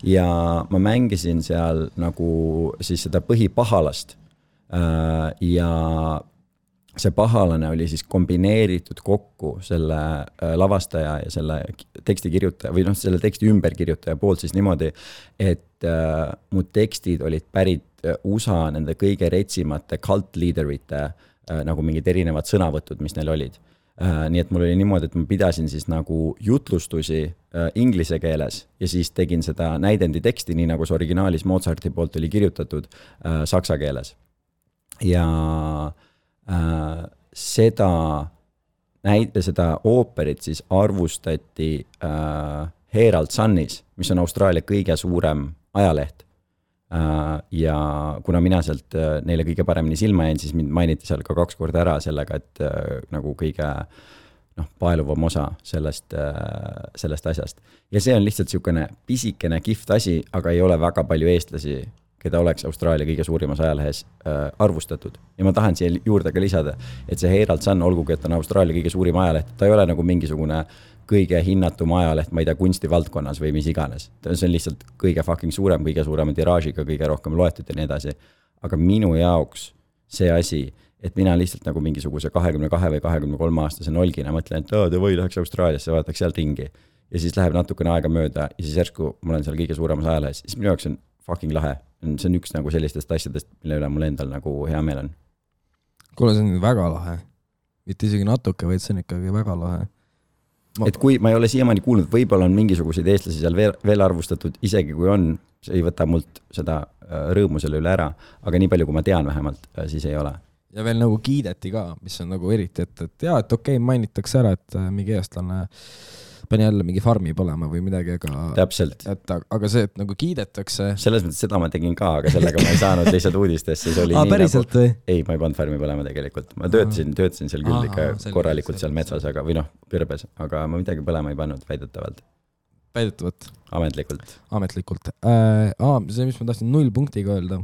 Ja ma mängisin seal nagu siis seda põhipahalast ja see pahalane oli siis kombineeritud kokku selle lavastaja ja selle tekstikirjutaja või selle teksti ümberkirjutaja poolt siis niimoodi, et mu tekstid olid pärit USA nende kõige retsimate cult leaderite nagu mingid erinevad sõnavõtud, mis neil olid. Nii et mul oli niimoodi, et ma pidasin siis nagu jutlustusi inglise keeles ja siis tegin seda näidendi teksti, nii nagu see originaalis Mozarti poolt oli kirjutatud saksa keeles. Ja seda ooperit siis arvustati Herald Sunis, mis on Austraalia kõige suurem ajaleht. Ja kuna mina sealt neile kõige paremini silma jäin, siis mind mainiti seal ka 2 korda ära sellega, et nagu kõige paeluvam osa sellest asjast. Ja see on lihtsalt siukene pisikene kihvt asi, aga ei ole väga palju eestlasi, keda oleks Austraalia kõige suurimas ajalehes arvustatud. Ja ma tahan siia juurde ka lisada, et see Herald Sun, olgugi, et on Austraalia kõige suurim ajaleht, ta ei ole nagu mingisugune kõige hinnatum ajaleht, ma ei tea, kunstivaldkonnas või mis iganes. See on lihtsalt kõige fucking suurem, kõige suurema tiraažiga, kõige rohkem loetud ja nii edasi. Aga minu jaoks see asi, et mina lihtsalt nagu mingisuguse 22 või 23 aastase nolgina mõtlen, et või läheks Austraaliasse, vaataks seal ringi. Ja siis läheb natukene aega mööda ja siis järsku ma olen seal kõige suuremas ajalehes. Siis minu jaoks on fucking lahe. See on üks nagu sellistest asjadest, mille üle mul endal nagu hea meel on. Kuule, see on väga lahe. Mitte isegi natuke, vaid see on ikkagi väga lahe. Et kui ma ei ole siiamaani kuulnud, võib-olla on mingisuguseid eestlasi seal veel arvustatud, isegi kui on, see ei võta mult seda rõõmu selle üle ära, aga nii palju, kui ma tean vähemalt, siis ei ole. Ja veel nagu kiideti ka, mis on nagu eriti, et jaa, et okei, mainitakse ära, et mingi eestlane pani jälle mingi farmi põlema või midagi, täpselt. Aga see, et nagu kiidetakse... Selles mõttes seda ma tegin ka, aga sellega ma ei saanud lihtsalt uudistesse. Päriselt või? Ei, ma ei pannud farmi põlema tegelikult. Ma töötasin seal küll ikka korralikult seal metsas, aga, või Pirbes, aga ma midagi põlema ei pannud väidetavalt. Väidetavalt? Ametlikult. See, mis ma tahtsin 0 punktiga öelda.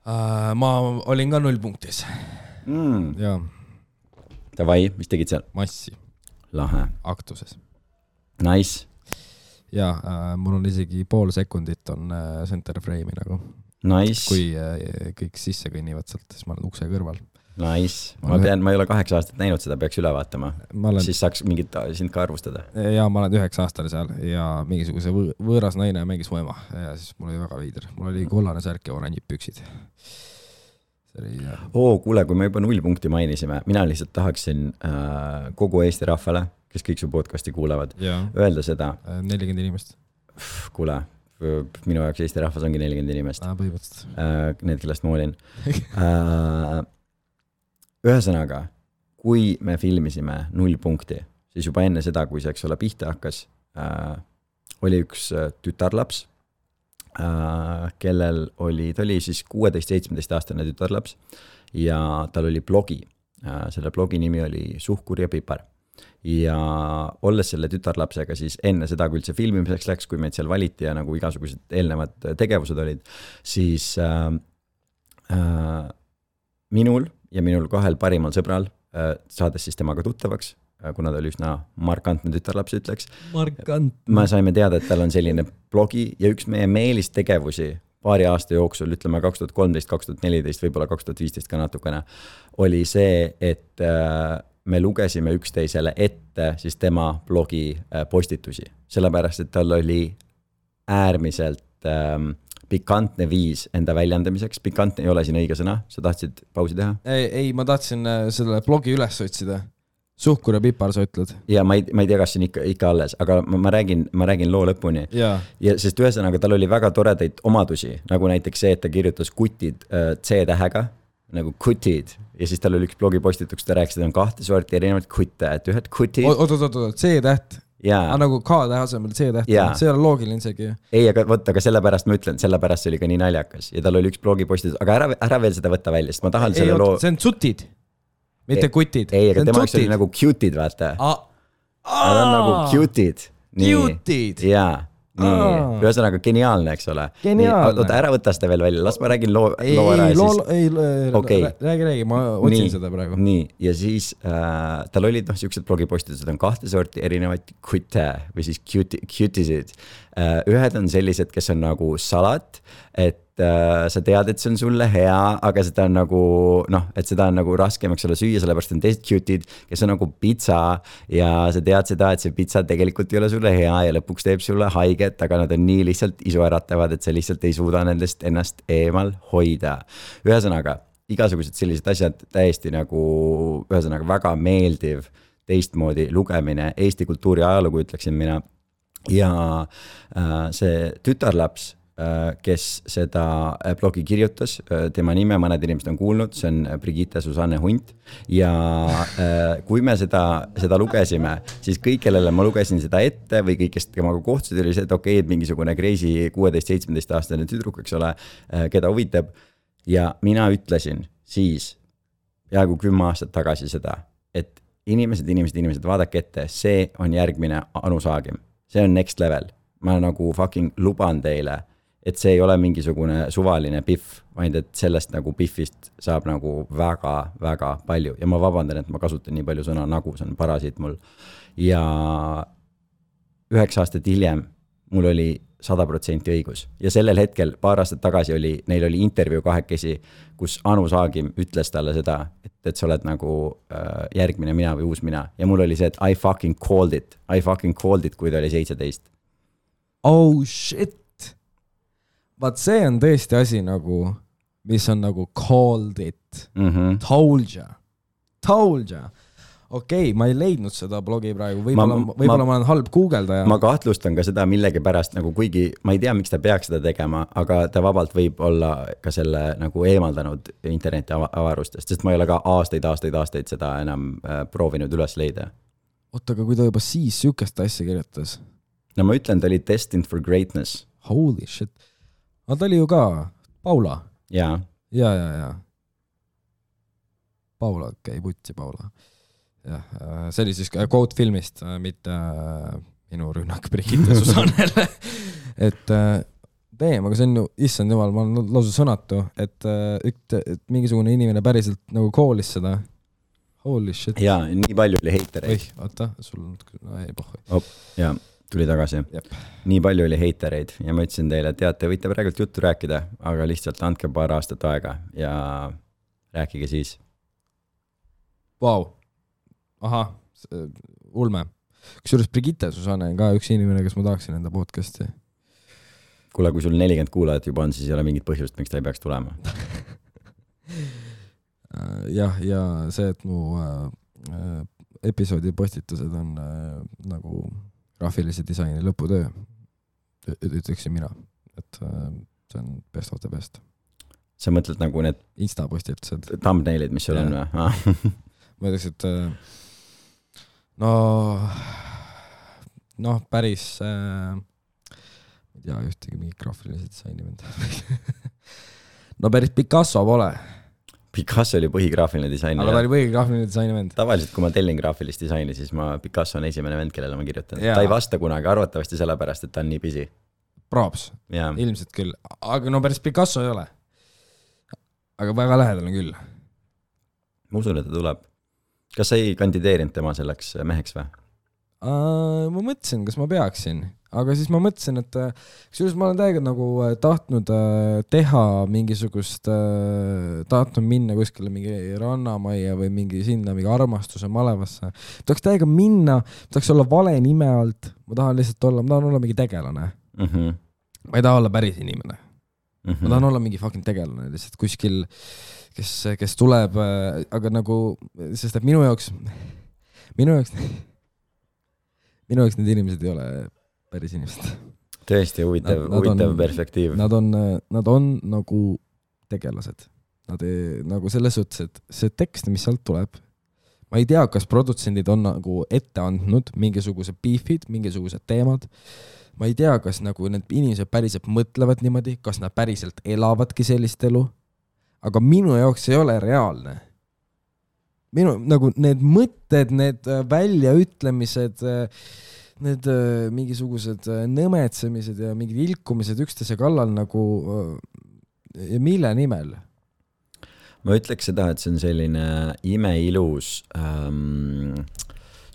Ma olin ka 0 punktis. Jaa. Davai, mis tegid seal? Massi. Lahe. Aktuses. Nice. Ja, mul on isegi pool sekundit on center frame'i nagu. Nice. Kui kõik sisse kõnnivad sealt, siis ma olen ukse kõrval. Nice. Ma ei ole 8 aastat näinud seda, peaks üle vaatama. Siis saaks mingit sind ka arvustada. Ja ma olen 9 aastane seal ja mingisuguse võõras naine mängis mu ema ja siis mul oli väga veider. Mul oli kollane särk ja oranjid püksid. Kuule, kui me juba 0 punkti mainisime, mina lihtsalt tahaksin kogu Eesti rahvale kes kõik su podcasti kuulavad, Jaa. öelda seda. 40 inimest. Kuule, minu jaoks Eesti rahvas ongi 40 inimest. Põhimõtteliselt. Need, kellest ma olin. Ühesõnaga, kui me filmisime 0 punkti, siis juba enne seda, kui see, eks ole, pihta hakkas, oli üks tütarlaps, kellel ta oli siis 16-17 aastane tütarlaps ja tal oli blogi. Selle blogi nimi oli Suhkur ja pipar. Ja olles selle tütarlapsega siis enne seda, kui üldse filmimiseks läks, kui meid seal valiti ja nagu igasugused eelnevad tegevused olid, siis minul ja minul 2 parimal sõbral, saades siis temaga tuttavaks, kuna ta oli üsna markantne tütarlaps, ütleks. Me saime teada, et tal on selline blogi ja üks meie meelistegevusi paari aasta jooksul, ütleme 2013, 2014, võib-olla 2015 ka natukene, oli see, et me lugesime üksteisele ette siis tema blogi postitusi. Sellepärast, et tal oli äärmiselt pikantne viis enda väljendamiseks. Pikantne ei ole siin õige sõna. Sa tahtsid pausi teha? Ei, ma tahtsin selle blogi üles otsida. Suhkur ja pipar, sa ütled. Ja ma ei tea, kas siin ikka alles, aga ma räägin loo lõpuni. Ja sest ühesõnaga tal oli väga toredaid omadusi, nagu näiteks see, et ta kirjutas kutid C-tähega, nagu kutid. Ja siis tal oli üks blogipostituks, ta rääkis, et on 2 sorti erinevad kutte, et ühed kutid. Oot, C-täht. Nagu K-tähe asemel C-täht. See ei ole loogiline isegi. Ei, aga sellepärast ma ütlen, sellepärast see oli ka nii naljakas. Ja tal oli üks blogipostitus, aga ära veel seda võtta välja, sest ma tahan selle loo... See on tsutid, mitte kutid. Ei, aga tema oli nagu cutid, vaata. Nad on nagu cutid. Cutid? Jaa. Nii, ühesõnaga geniaalne, eks ole. Geniaalne. Oota, ära võta seda veel välja, las ma räägin loo ära ja siis... Räägi, ma otsin seda praegu. Nii, ja siis tal olid siuksed blogipostitused, on 2 sorti erinevaid kutte või siis cutisid. Ühed on sellised, kes on nagu salat, et sa tead, et see on sulle hea, aga seda on nagu, et seda on nagu raskem, eks ole, süüa, sellepärast on teised cutid, kes on nagu pitsa ja sa tead seda, et see pitsa tegelikult ei ole sulle hea ja lõpuks teeb sulle haiget, aga nad on nii lihtsalt isuäratavad, et sa lihtsalt ei suuda nendest ennast eemal hoida. Ühesõnaga, igasugused sellised asjad täiesti nagu, ühesõnaga väga meeldiv teistmoodi lugemine, Eesti kultuuri ajalugu, ütleksin mina. Ja see tütarlaps, kes seda blogi kirjutas, tema nime mõned inimesed on kuulnud, see on Brigitte Susanne Hunt ja kui me seda lugesime, siis kõik, kellele ma lugesin seda ette või kõik, kes temaga kohtusid, oli see, et okei, et mingisugune crazy 16-17 aastane tüdruk, eks ole, keda huvitab ja mina ütlesin siis peaaegu 10 aastat tagasi seda, et inimesed, vaadake ette, see on järgmine Anu Saagim, see on next level, ma nagu fucking luban teile, et see ei ole mingisugune suvaline piff, vaid et sellest nagu piffist saab nagu väga, väga palju ja ma vabandan, et ma kasutan nii palju sõna nagu, see on parasiit mul ja 9 aastat hiljem mul oli 100% õigus ja sellel hetkel paar aastat tagasi neil oli intervjuu kahekesi, kus Anu Saagim ütles talle seda, et sa oled nagu järgmine mina või uus mina ja mul oli see, et I fucking called it, kui ta oli 17. Oh shit! Vaat see on tõesti asi nagu, mis on nagu called it. Told ya. Okei, ma ei leidnud seda blogi praegu, võib-olla ma olen halb guugeldaja. Ma kahtlustan ka seda millegi pärast, nagu kuigi ma ei tea, miks ta peaks seda tegema, aga ta vabalt võib olla ka selle nagu eemaldanud interneti avarustest, sest ma ei ole ka aastaid seda enam proovinud üles leida. Oota, aga kui ta juba siis sükest asja kirjutas? No ma ütlen, ta oli destined for greatness. Holy shit. Ta oli ju ka Paula. Ja. Paula, putsi Paula. Ja, see oli siis quote filmist, mitte minu rünnak Brigitte Susannele. Et aga see on ju, issand jumal, ma olen lausa sõnatu, et mingisugune inimene päriselt nagu koolis seda. Holy shit. Ja, nii palju oli heitereid. Oota, sul on, ei pohhu. Ja. Tuli tagasi. Jep. Nii palju oli heitereid ja ma ütlesin teile, et te võite praegult juttu rääkida, aga lihtsalt andke paar aastat aega ja rääkige siis. Vau. Aha, ulme. Kusjuures Brigitte Susanne on ka üks inimene, kes ma tahaksin enda podcasti. Kuule, kui sul 40 kuulajat juba on, siis ei ole mingit põhjust, miks ta ei peaks tulema. Ja see, et mu episoodi postitused on nagu graafilise disaini lõputöö, ütleksin mina, et see on best of the best. Sa mõtled nagu need Insta postitused. Thumbnailid, mis sul on või? Ma ütleks, et päris ei tea ühtegi mingi graafilise disaini vend. No päris Picasso pole. Picasso oli põhigraafiline disainer. Aga ta oli põhigraafiline disaini vend. Tavaliselt, kui ma tellin graafilist disaini, siis Picasso on esimene vend, kellele ma kirjutan. Ta ei vasta kunagi, arvatavasti sellepärast, et ta on nii busy. Props. Ilmselt küll. Aga no päris Picasso ei ole. Aga väga lähedal on küll. Ma usun, et ta tuleb. Kas sa ei kandideerinud tema selleks meheks või? Ma mõtlesin, kas ma peaksin. Aga siis ma mõtlesin, et kusjuures ma olen täiega nagu tahtnud teha mingisugust, tahtnud minna kuskile mingi rannamaia või mingi sinna mingi armastuse malevasse. Tahaks täiega minna, tahaks olla vale nime alt, ma tahan olla mingi tegelane. Ma ei taha olla päris inimene. Ma tahan olla mingi fucking tegelane lihtsalt kuskil, kes tuleb, aga nagu, sest et minu jaoks need inimesed ei ole päris inimesed. Tõesti huvitav perspektiiv. Nad on nagu tegelased. Nad nagu selles suhtes, et see tekst, mis sealt tuleb, ma ei tea, kas produtsendid on nagu ette andnud mingisugused beefid, mingisugused teemad. Ma ei tea, kas nagu need inimesed päriselt mõtlevad niimoodi, kas nad päriselt elavadki sellist elu. Aga minu jaoks ei ole reaalne. Nagu need mõtted, need väljaütlemised, need mingisugused nõmetsemised ja mingid ilkumised üksteise kallal nagu mille nimel? Ma ütleks seda, et see on selline imeilus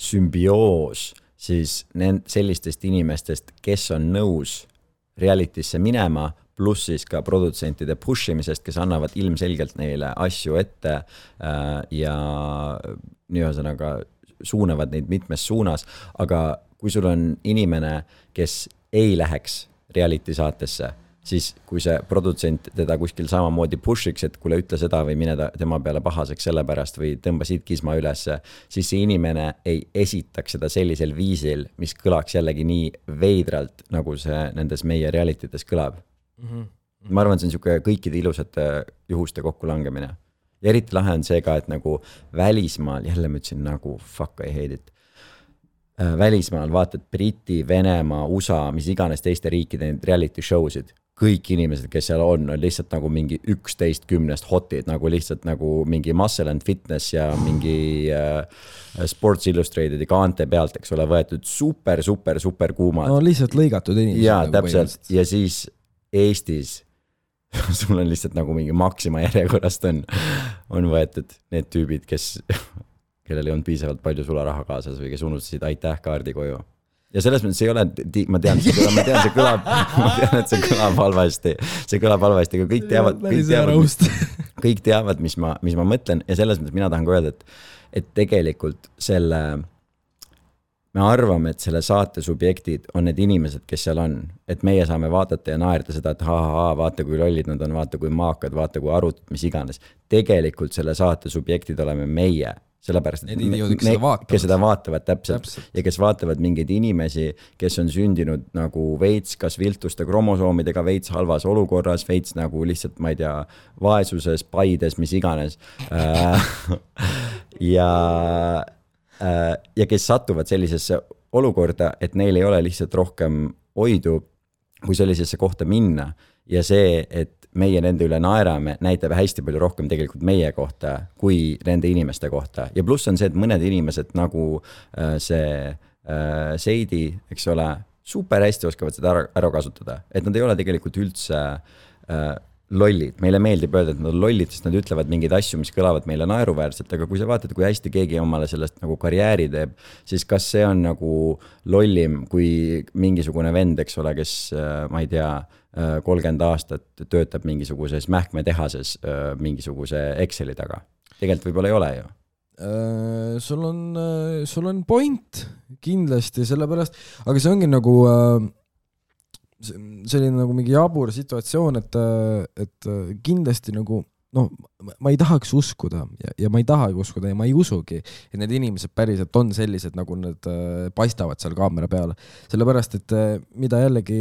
sümbioos siis sellistest inimestest, kes on nõus realitysse minema, pluss siis ka produtsentide pushimisest, kes annavad ilmselgelt neile asju ette ja ühesõnaga suunavad neid mitmes suunas, aga kui sul on inimene, kes ei läheks reality saatesse, siis kui see produtsent teda kuskil samamoodi pushiks, et kuule ütle seda või mine tema peale pahaseks sellepärast või tõmba siit kisma üles, siis see inimene ei esitaks seda sellisel viisil, mis kõlaks jällegi nii veidralt, nagu see nendes meie realitytes kõlab. Ma arvan, et see on niisugune kõikide ilusate juhuste kokkulangemine. Ja eriti lahe on see ka, et nagu välismaal, jälle ma ütlesin nagu fuck I hate it, välismaal vaatad Briti, Venemaa, USA, mis iganes teiste riikide reality showsid, kõik inimesed, kes seal on lihtsalt nagu mingi 11-10 hotid, nagu lihtsalt nagu mingi Muscle and Fitness ja mingi Sports Illustrated ja kaante pealt, eks ole, võetud super kuumad. No lihtsalt lõigatud inimesed. Jaa, täpselt. Ja siis Eestis sul on lihtsalt nagu mingi Maxima järjekorrast on võetud need tüübid, kellel ei olnud piisavalt palju sularaha kaasas või kes unustasid aitäh kaardi koju. Ja selles mõttes ei ole, ma tean, see kõlab halvasti. See kõlab halvasti, aga kõik teavad, mis ma mõtlen. Ja selles mõttes mina tahan ka öelda, et tegelikult me arvame, et selle saate subjektid on need inimesed, kes seal on. Et meie saame vaadata ja naerda seda, et vaata kui lollid nad on, vaata kui maakad, vaata kui arut, mis iganes. Tegelikult selle saate subjektid oleme meie. Sellepärast, et kes seda vaatavad täpselt ja kes vaatavad mingeid inimesi, kes on sündinud nagu veits, kas viltuste kromosoomidega veits halvas olukorras, veits nagu lihtsalt, ma ei tea, vaesuses, paides, mis iganes. Ja kes satuvad sellisesse olukorda, et neil ei ole lihtsalt rohkem oidu, kui sellisesse kohta minna. Ja see, et meie nende üle naerame, näitab hästi palju rohkem tegelikult meie kohta kui nende inimeste kohta. Ja pluss on see, et mõned inimesed nagu see Seidi, eks ole, super hästi oskavad seda ära kasutada. Et nad ei ole tegelikult üldse lollid. Meile meeldib öelda, et nad on lollid, sest nad ütlevad mingeid asju, mis kõlavad meile naeruväärselt, aga kui sa vaatad, kui hästi keegi omale sellest nagu karjääri teeb, siis kas see on nagu lollim kui mingisugune vend, eks ole, kes, ma ei tea, 30 aastat töötab mingisuguses mähkmetehases mingisuguse Exceli taga. Tegelikult võib-olla ei ole ju. Sul on point kindlasti sellepärast, aga see ongi nagu selline nagu mingi jabur situatsioon, et kindlasti nagu noh, ma ei tahaks uskuda ja ma ei tahagi uskuda ja ma ei usugi, et need inimesed päriselt on sellised, nagu nad paistavad seal kaamera peale. Sellepärast, et mida jällegi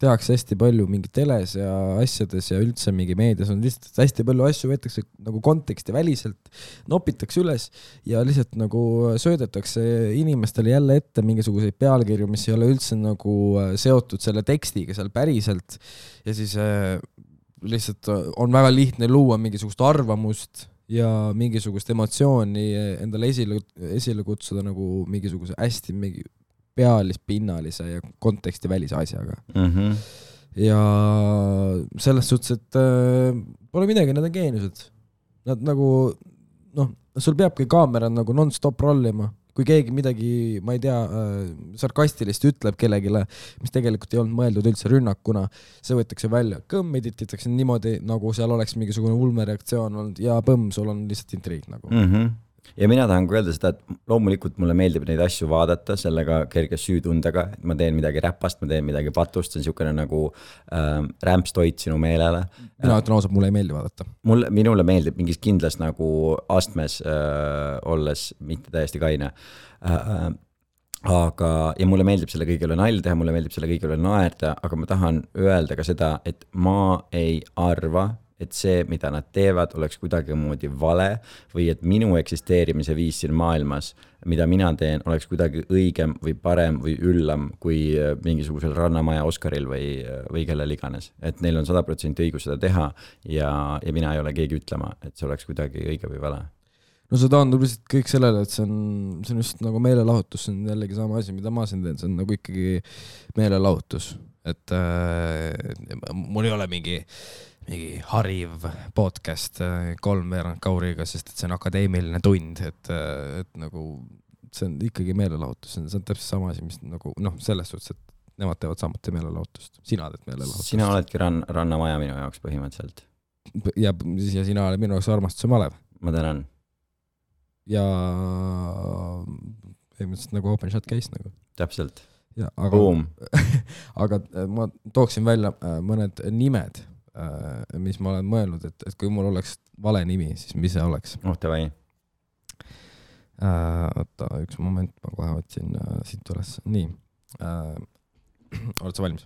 tehakse hästi palju mingi teles ja asjades ja üldse mingi meedias on lihtsalt hästi palju asju võetakse nagu konteksti väliselt, nopitakse üles ja lihtsalt nagu söödetakse inimestele jälle ette mingisuguseid pealkirju, mis ei ole üldse nagu seotud selle tekstiga seal päriselt ja siis lihtsalt on väga lihtne luua mingisugust arvamust ja mingisugust emotsiooni endale esile kutsuda nagu mingisuguse hästi mingi pealispinnalise ja konteksti välise asjaga. Ja selles suhtes, et pole midagi, nad on geeniused. Nad nagu, noh, sul peabki kaamera nagu non-stop rollima. Kui keegi midagi, ma ei tea, sarkastilist ütleb kellegile, mis tegelikult ei olnud mõeldud üldse rünnakuna, see võetakse välja. Kõmm edititakse niimoodi, nagu seal oleks mingisugune ulmereaktsioon olnud ja põmm, sul on lihtsalt intriig nagu. Ja mina tahan öelda seda, et loomulikult mulle meeldib neid asju vaadata sellega kerge süütundega, et ma teen midagi räpast, ma teen midagi patust, see on niisugune nagu rämpstoit sinu meelele. Mina ütlen ausalt, mulle ei meeldi vaadata. Minule meeldib mingis kindlas nagu astmes olles, mitte täiesti kaine. Aga, ja mulle meeldib selle kõigile nalja teha, mulle meeldib selle kõigile naerda, aga ma tahan öelda ka seda, et ma ei arva, et see, mida nad teevad, oleks kuidagi moodi vale või et minu eksisteerimise viis siin maailmas, mida mina teen, oleks kuidagi õigem või parem või üllam kui mingisugusel Rannamaja Oscaril või kellel iganes. Et neil on 100% õigus seda teha ja mina ei ole keegi ütlema, et see oleks kuidagi õige või vale. No see taandub lihtsalt kõik sellele, et see on just nagu meelelahutus, see on jällegi sama asi, mida ma siin teen, see on nagu ikkagi meelelahutus. Et mul ei ole mingi hariv podcast 3 veerand kauriga, sest et see on akadeemiline tund, et nagu see on ikkagi meelelahutus, see on täpselt sama asi, mis nagu, noh, selles suhtes, et nemad teevad samuti meelelahutust. Sina teed meelelahutust. Sina oledki Rannamaja minu jaoks põhimõtteliselt. Ja sina oled minu jaoks armastuse malev. Ma tänan. Ja põhimõtteliselt nagu open shot case nagu. Täpselt. Ja, aga ma tooksin välja mõned nimed, mis ma olen mõelnud, et kui mul oleks vale nimi, siis mis see oleks? Davai. Oota, üks moment, ma kohe otsin siit üles. Nii. Oled sa valmis?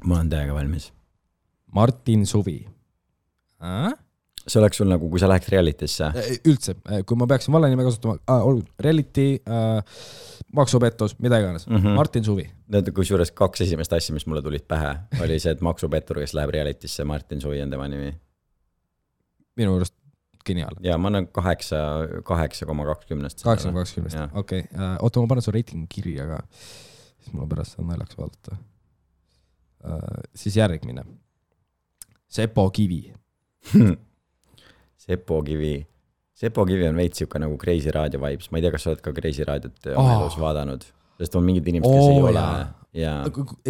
Ma olen täiega valmis. Martin Suvi. See oleks sul nagu, kui sa läheks realitisse? Üldse, kui ma peaksin vale nime kasutama, reality, maksupettus, mida iganes. Martin Suvi. Kui suures 2 esimest asja, mis mulle tulid pähe, oli see, et maksupettur, kes läheb realitisse, Martin Suvi on tema nimi. Minu juurest geniaal. Ja ma olen 8,20. 8,20. Okei. Oota, ma panen su reitingu kirja, aga siis mul on pärast seda naljaks vaadata. Siis järgmine. Sepo Kivi. Sepo Kivi on veits siuke nagu Crazy Radio vibes. Ma ei tea, kas sa oled ka Crazy Radiot oma elus vaadanud. Sest on mingid inimesed, kes ei ole. Ja...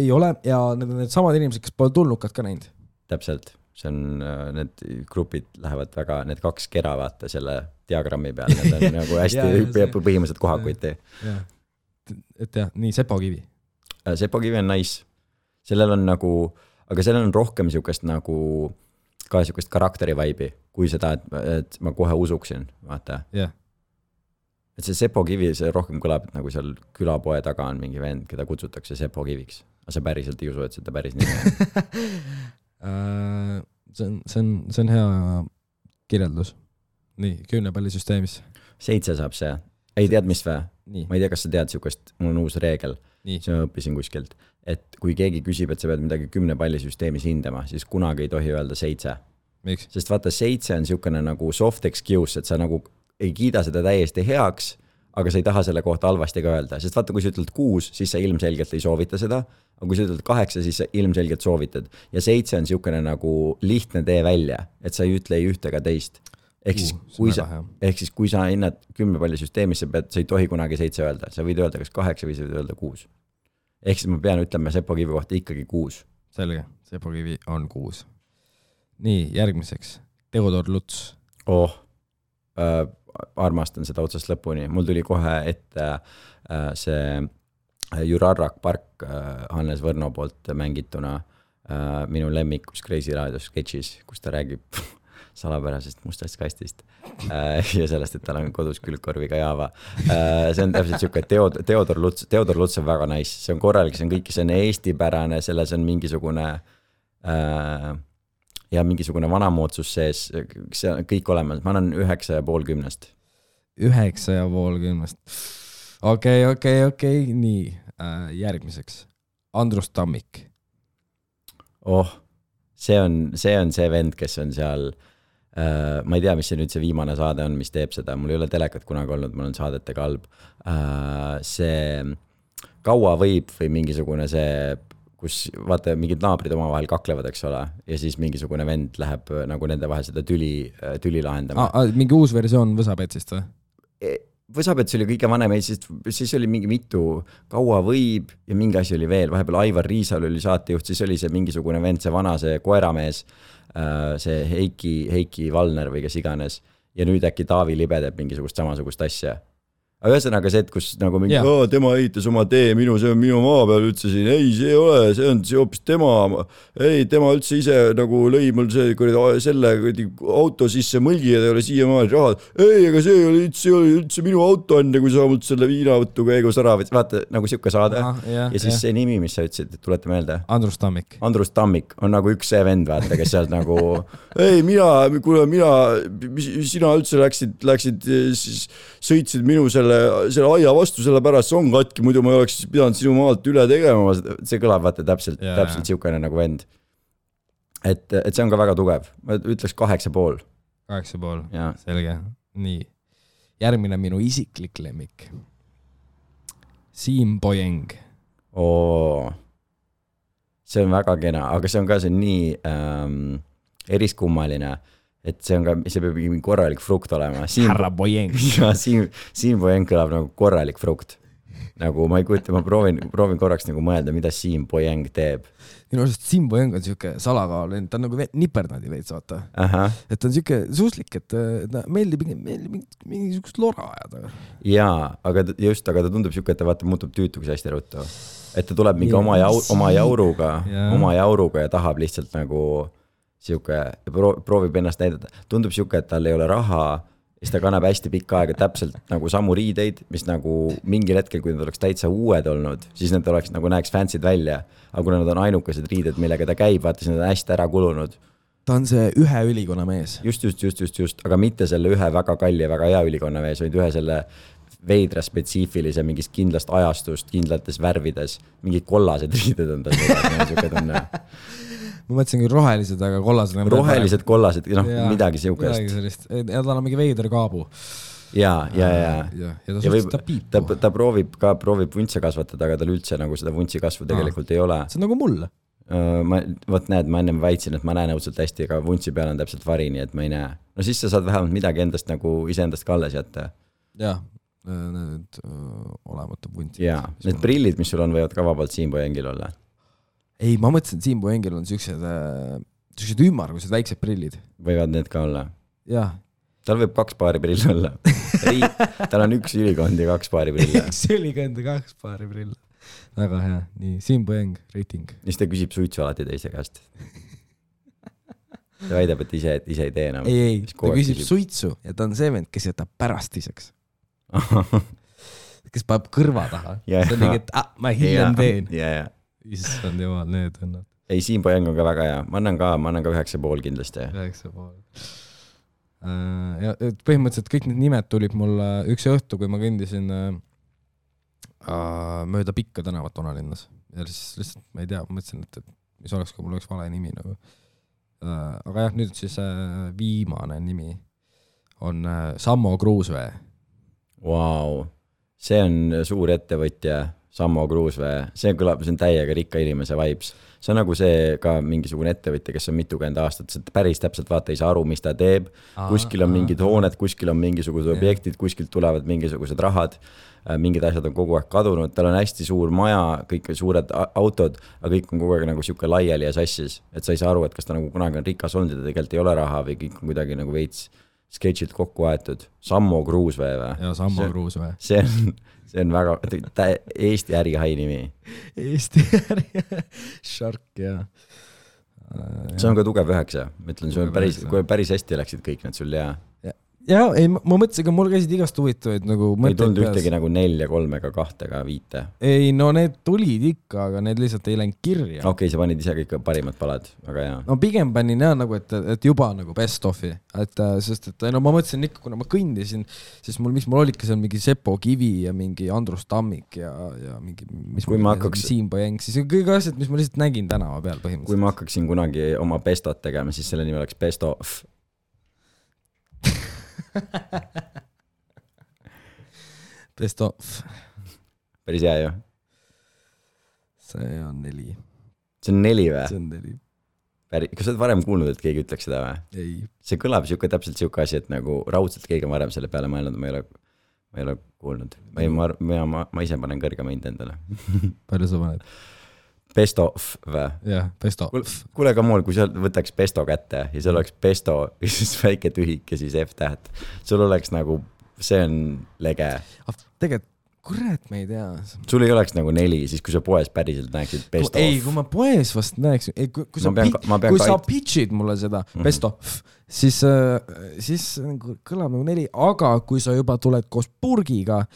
Ei ole ja need samad inimesed, kes pole tulnukad ka näinud. Täpselt. See on, need grupid lähevad väga, need 2 kera vaata selle diagrammi peal. Need on nagu hästi põhimõtteliselt kohakuiti. Et jah, nii Sepo Kivi. Sepo Kivi on nice. Sellel on nagu, aga sellel on rohkem siukest nagu ka siukest karakteri-vaibi, kui seda, et ma kohe usuksin, vaata. Yeah. Et see Sepo Kivi, see rohkem kõlab, et nagu seal külapoe taga on mingi vend, keda kutsutakse Sepo Kiviks. Aga sa päriselt ei usu, et seda päris nimi. See on hea kirjeldus. Nii, 10 pallisüsteemis. 7 saab see. Ei tead, mis vä? Nii. Ma ei tea, kas sa tead siukest, mul on uus reegel. See ma õppisin kuskilt. Et kui keegi küsib, et sa pead midagi 10 pallisüsteemis hindama, siis kunagi ei tohi öelda 7. Miks? Sest vaata, 7 on siukene nagu soft excuse, et sa nagu ei kiida seda täiesti heaks, aga sa ei taha selle kohta halvasti ka öelda. Sest vaata, kui sa ütled 6, siis sa ilmselgelt ei soovita seda, aga kui sa ütled 8, siis sa ilmselgelt soovitad. Ja 7 on siukene nagu lihtne tee välja, et sa ei ütle ei ühte ega teist. Ehk siis kui sa hinnad 10 pallisüsteemis, sa ei tohi kunagi 7 öelda. Sa võid öelda kas 8 või sa võid öelda 6. Ehk siis ma pean ütlema Sepo Kivi kohta ikkagi 6. Selge, Sepo Kivi on 6. Nii, järgmiseks. Teodor Luts. Armastan seda otsast lõpuni. Mul tuli kohe ette see Jurarrak Park Hannes Võrno poolt mängituna minu lemmikus Crazy Radio sketšis, kus ta räägib salapärasest mustast kastist ja sellest, et tal on kodus külgkorviga Java. See on täpselt siuke, et Theodor Luts on väga nice, see on korralik, see on kõik, see on eestipärane, selles on mingisugune ja mingisugune vanamoodsus sees, see on kõik olemas, ma annan 9,5 10. 9,5 okei, nii, järgmiseks Andrus Tammik. See on see vend, kes on seal, ma ei tea, mis see nüüd see viimane saade on, mis teeb seda, mul ei ole telekat kunagi olnud, mul on saadete kalb. See kaua võib või mingisugune see, kus vaata mingid naabrid omavahel kaklevad, eks ole, ja siis mingisugune vend läheb nagu nende vahel seda tüli lahendama. Mingi uus versioon Võsapetsist või? Võsapets oli kõige vanem, siis oli mingi mitu kaua võib ja mingi asi oli veel, vahepeal Aivar Riisal oli saatejuht, siis oli see mingisugune vend, see vana, see koeramees, see Heiki Valner või kes iganes ja nüüd äkki Taavi Libe teeb mingisugust samasugust asja. Aga ühesõnaga see, et kus nagu mingi, tema ehitas oma tee, see on minu maa peal, ütlesin, ei, see ei ole, see on hoopis tema üldse ise nagu lõi mul selle auto sisse mõlgi ja ta ei ole siiamaani rahad. Ei, aga see oli üldse minu auto enne, kui sa mult selle viinavõttu käigus ära võtsid. Vaata, nagu siuke saade. Ja siis see nimi, mis sa ütlesid, tulete meelde? Andrus Tammik. Andrus Tammik on nagu üks see vend, vaata, kes sealt nagu, ei, sina üldse läksid, sõitsid minu selle aia vastu, selle pärast see on katki, muidu ma ei oleks pidanud sinu maalt üle tegema, see kõlab vaata täpselt siukene nagu vend. Et see on ka väga tugev, ma ütleks 8,5. 8,5, selge. Nii, järgmine minu isiklik lemmik. Siim Poyeng. See on väga kena, aga see on ka see nii eriskummaline, et see peab mingi korralik frukt olema. Härra Poyeng. Ja Siim Poyeng kõlab nagu korralik frukt. Nagu ma ei kujuta, ma proovin korraks nagu mõelda, mida Siim Poyeng teeb. Minu arust Siim Poyeng on siuke salakaal, ta on nagu nipernadi veits, vaata. Et ta on siuke suuslik, et meeldib mingisugust lora ajada. Jaa, aga ta tundub siuke, et ta vaata muutub tüütuks hästi ruttu. Et ta tuleb mingi oma jauruga ja tahab lihtsalt nagu siuke, proovib ennast näidata. Tundub siuke, et tal ei ole raha, siis ta kannab hästi pikka aega täpselt nagu samu riideid, mis nagu mingil hetkel, kui nad oleks täitsa uued olnud, siis need oleks nagu näeks fansid välja. Aga kuna nad on ainukesed riided, millega ta käib, vaata, siis nad on hästi ära kulunud. Ta on see ühe ülikonna mees. Just, aga mitte selle ühe väga kalli ja väga hea ülikonna mees, vaid ühe selle veidra spetsiifilise mingist kindlast ajastust, kindlates värvides, mingid kollased riided on tal. Ma mõtlesin küll rohelised, aga kollased. Kollased, midagi siukest. Ja tal on mingi veider kaabu. Ja ta proovib vuntse kasvatada, aga tal üldse nagu seda vuntsi kasvu tegelikult ei ole. See on nagu mul. Ma ennem väitsin, et ma näen õudselt hästi, aga vuntsi peal on täpselt vari, nii et ma ei näe. No siis sa saad vähemalt midagi endast nagu iseendast ka alles jätta. Jah, need olematu vuntsi. Ja, need prillid, mis sul on, võivad ka vabalt Siim Poyengil olla. Ei, ma mõtlesin, et Siim Poyengil on siuksed ümmargused väiksed prillid. Võivad need ka olla? Jah. Tal võib 2 paari prill olla. Tal on 1 ülikond ja 2 paari prill. 1 ülikond ja 2 paari prill. Väga hea. Nii, Siim Poyeng, rating. Siis ta küsib suitsu alati teise käest. Ta väidab, et ise ei tee enam. Ei, ta küsib suitsu ja ta on see vend, kes jätab pärastiseks. Kes paneb kõrva taha. See on mingi, et ma hiljem teen. Issand jumal, need on. Ei, Siim Poyeng on ka väga hea. Ma annan ka 9,5 kindlasti. 9,5. Ja põhimõtteliselt kõik need nimed tulid mul üks õhtu, kui ma kõndisin mööda Pikka tänavat Onalinnas. Ja siis lihtsalt, ma ei tea, mõtlesin, et mis oleks, kui mul oleks vale nimi nagu. Aga jah, nüüd siis viimane nimi on Sammo Kruusvee. Wow. See on suur ettevõtja. Sammo Kruusvee, see on täiega rikka inimese vibes. See on nagu see ka mingisugune ettevõtja, kes on mitukümmend aastat, päris täpselt vaata ei saa aru, mis ta teeb. Kuskil on mingid hooned, kuskil on mingisugused objektid, kuskilt tulevad mingisugused rahad, mingid asjad on kogu aeg kadunud, tal on hästi suur maja, kõik suured autod, aga kõik on kogu aeg nagu siuke laiali ja sassis, et sa ei saa aru, et kas ta nagu kunagi on rikas olnud ja tegelikult ei ole raha või kõik on kuidagi nagu veits sketšilt kokku aetud. Sammo Kruusvee või? Ja Sammo Kruusvee. See on väga Eesti ärihai nimi. Eesti äri, Shark, jah. see on ka tugev 9, ma ütlen, kui päris hästi läksid kõik need sul ja ei, ma mõtlesin, aga mul käisid igast huvitavaid nagu ei tulnud ühtegi nagu 4, 3 ega 2 ega 5. Ei, no need tulid ikka, aga need lihtsalt ei läinud kirja. Okei, sa panid ise kõik parimad palad, aga hea. No pigem panin nagu, et juba nagu best of'i, sest et no ma mõtlesin ikka, kuna ma kõndisin, siis miks mul olidki seal mingi Sepo Kivi ja mingi Andrus Tammik ja mingi Siim Põjeng, siis kõik asjad, mis ma lihtsalt nägin tänava peal põhimõtteliselt. Kui ma hakkaksin kunagi oma bestot tegema, siis selle nimi oleks best of. Best of. Päris hea ju. See on 4. See on 4 või? See on 4. Kas sa oled varem kuulnud, et keegi ütleks seda või? Ei. See kõlab täpselt siuke asi, et nagu raudselt keegi on varem selle peale mõelnud, ma ei ole kuulnud. Ma ise panen kõrgema hind endale. Palju sa paned? Best of või? Jah, best of. Kuule ka muul, kui sa võtaks besto kätte ja seal oleks besto ja siis väike tühik ja siis F-täht. Sul oleks nagu, see on lege. Tegelikult, kurat, ma ei tea. Sul ei oleks nagu 4, siis kui sa poes päriselt näeksid best of. Ei, kui ma poes vast näeksin, kui sa pitchid mulle seda best of, siis kõlab nagu 4, aga kui sa juba tuled koos purgiga,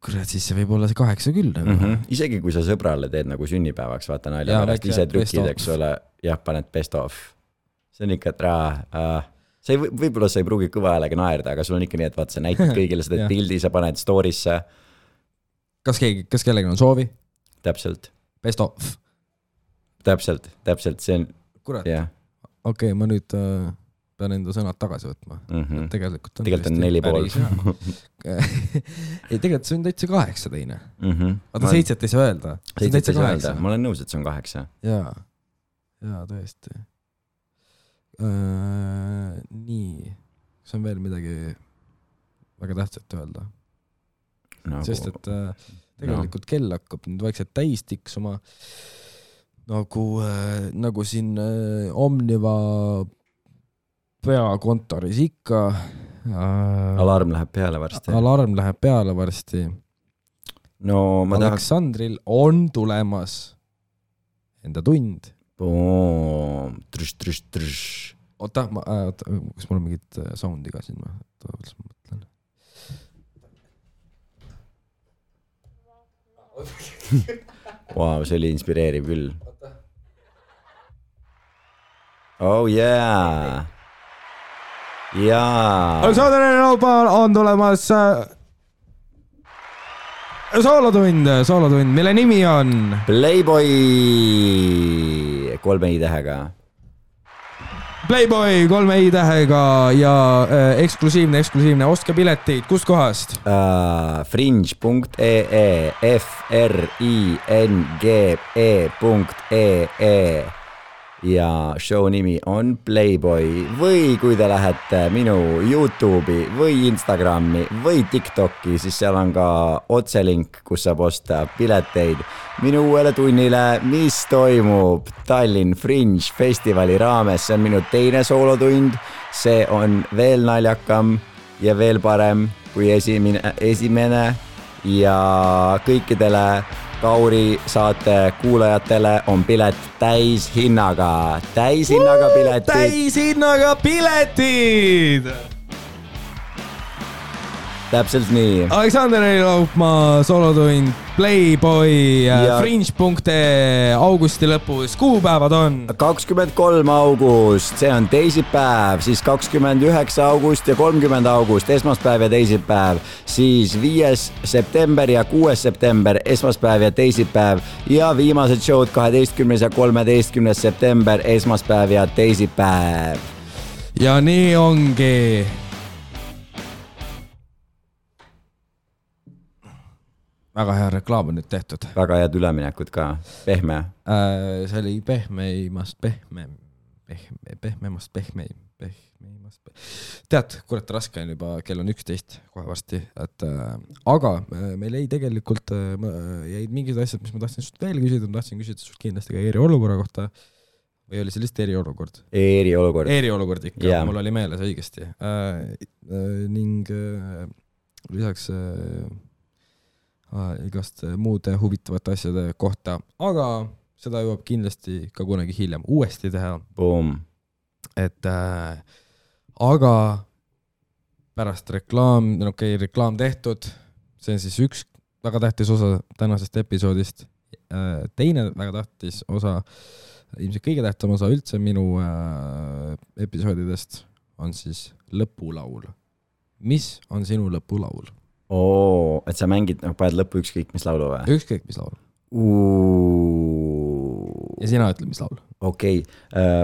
kurat, siis see võib olla see 8 küll. Isegi kui sa sõbrale teed nagu sünnipäevaks, vaata nalja pärast, ise trükid, eks ole, jah, paned best of. See on ikka, et võib-olla sa ei pruugi kõva häälega naerda, aga sul on ikka nii, et vaata, sa näitad kõigile seda pildi, sa paned story'sse. Kas kellegi on soovi? Täpselt. Best of. Täpselt, see on... Kurat, okei, ma nüüd... pean enda sõnad tagasi võtma. Tegelikult on 4,5. Ei, tegelikult see on täitsa 8 teine. Vaata 7 ei saa öelda. 7 ei saa öelda. Ma olen nõus, et see on 8. Jaa, tõesti. Nii. See on veel midagi väga tähtsat öelda. Sest, et tegelikult kell hakkab nüüd vaikselt täis tiksuma. Nagu siin Omniva peakontoris ikka. Alarm läheb peale varsti. No, Aleksandril on tulemas enda tund. Oota, kas mul on mingit soundi ka siin? Mõtlen. Wow, see oli inspireeriv küll. Oh yeah! Jaa. Aleksandril on tulemas soolotund, mille nimi on Playboy 3 i-tähega. Playboy 3 i-tähega ja eksklusiivne, ostke piletid, kust kohast? Fringe.ee fringe.ee ja show nimi on Playboy või kui te lähete minu YouTube'i või Instagrami või TikTok'i, siis seal on ka otselink, kus saab osta pileteid minu uuele tunnile, mis toimub Tallinn Fringe festivali raames. See on minu teine soolotund, see on veel naljakam ja veel parem kui esimene ja kõikidele Kauri saate kuulajatele on pilet täishinnaga piletid. Täishinnaga piletid! Täpselt nii. Aleksandr Laupmaa soolotund Playboy Fringe.ee augusti lõpus. Kuupäevad on 23. august, see on teisipäev, siis 29. august ja 30. august, esmaspäev ja teisipäev, siis 5. september ja 6. september, esmaspäev ja teisipäev ja viimased showd 12. ja 13. september, esmaspäev ja teisipäev. Ja nii ongi. Väga hea reklaam on nüüd tehtud. Väga head üleminekud ka. Pehme. See oli pehmeimast. Tead, kurat raske on juba, kell on 11 kohe varsti. Aga meil jäi tegelikult jäid mingid asjad, mis ma tahtsin sust veel küsida. Ma tahtsin küsida sust kindlasti ka eriolukorra kohta. Või oli see lihtsalt eriolukord? Eriolukord ikka, yeah. Mul oli meeles õigesti. Ning lisaks igast muude huvitavate asjade kohta. Aga seda jõuab kindlasti ka kunagi hiljem uuesti teha. Boom. Et aga pärast reklaam tehtud, see on siis üks väga tähtis osa tänasest episoodist. Teine väga tähtis osa, ilmselt kõige tähtsam osa üldse minu episoodidest on siis lõpulaul. Mis on sinu lõpulaul? Et sa mängid, paned lõppu ükskõik mis laulu või? Ükskõik mis laul. Ja sina ütle, mis laul? Okei.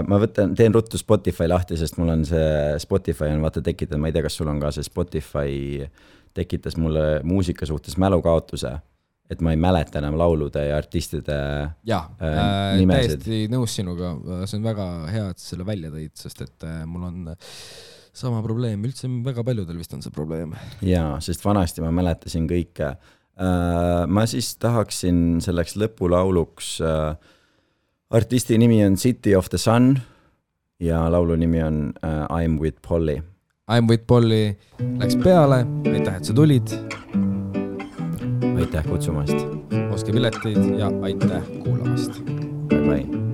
Ma teen ruttu Spotify lahti, sest mul on see Spotify on vaata tekitanud, ma ei tea, kas sul on ka see Spotify tekitas mulle muusika suhtes mälukaotuse, et ma ei mäleta enam laulude ja artistide nimesid. Täiesti nõus sinuga, see on väga hea, et selle välja tõid, sest et mul on sama probleem, üldse väga paljudel vist on see probleem. Jaa, sest vanasti ma mäletasin kõike. Ma siis tahaksin selleks lõpulauluks, artisti nimi on City of the Sun ja laulu nimi on I'm with Polly. I'm with Polly läks peale, aitäh, et sa tulid. Aitäh kutsumast. Oske piletid ja aitäh kuulamast. Bye bye.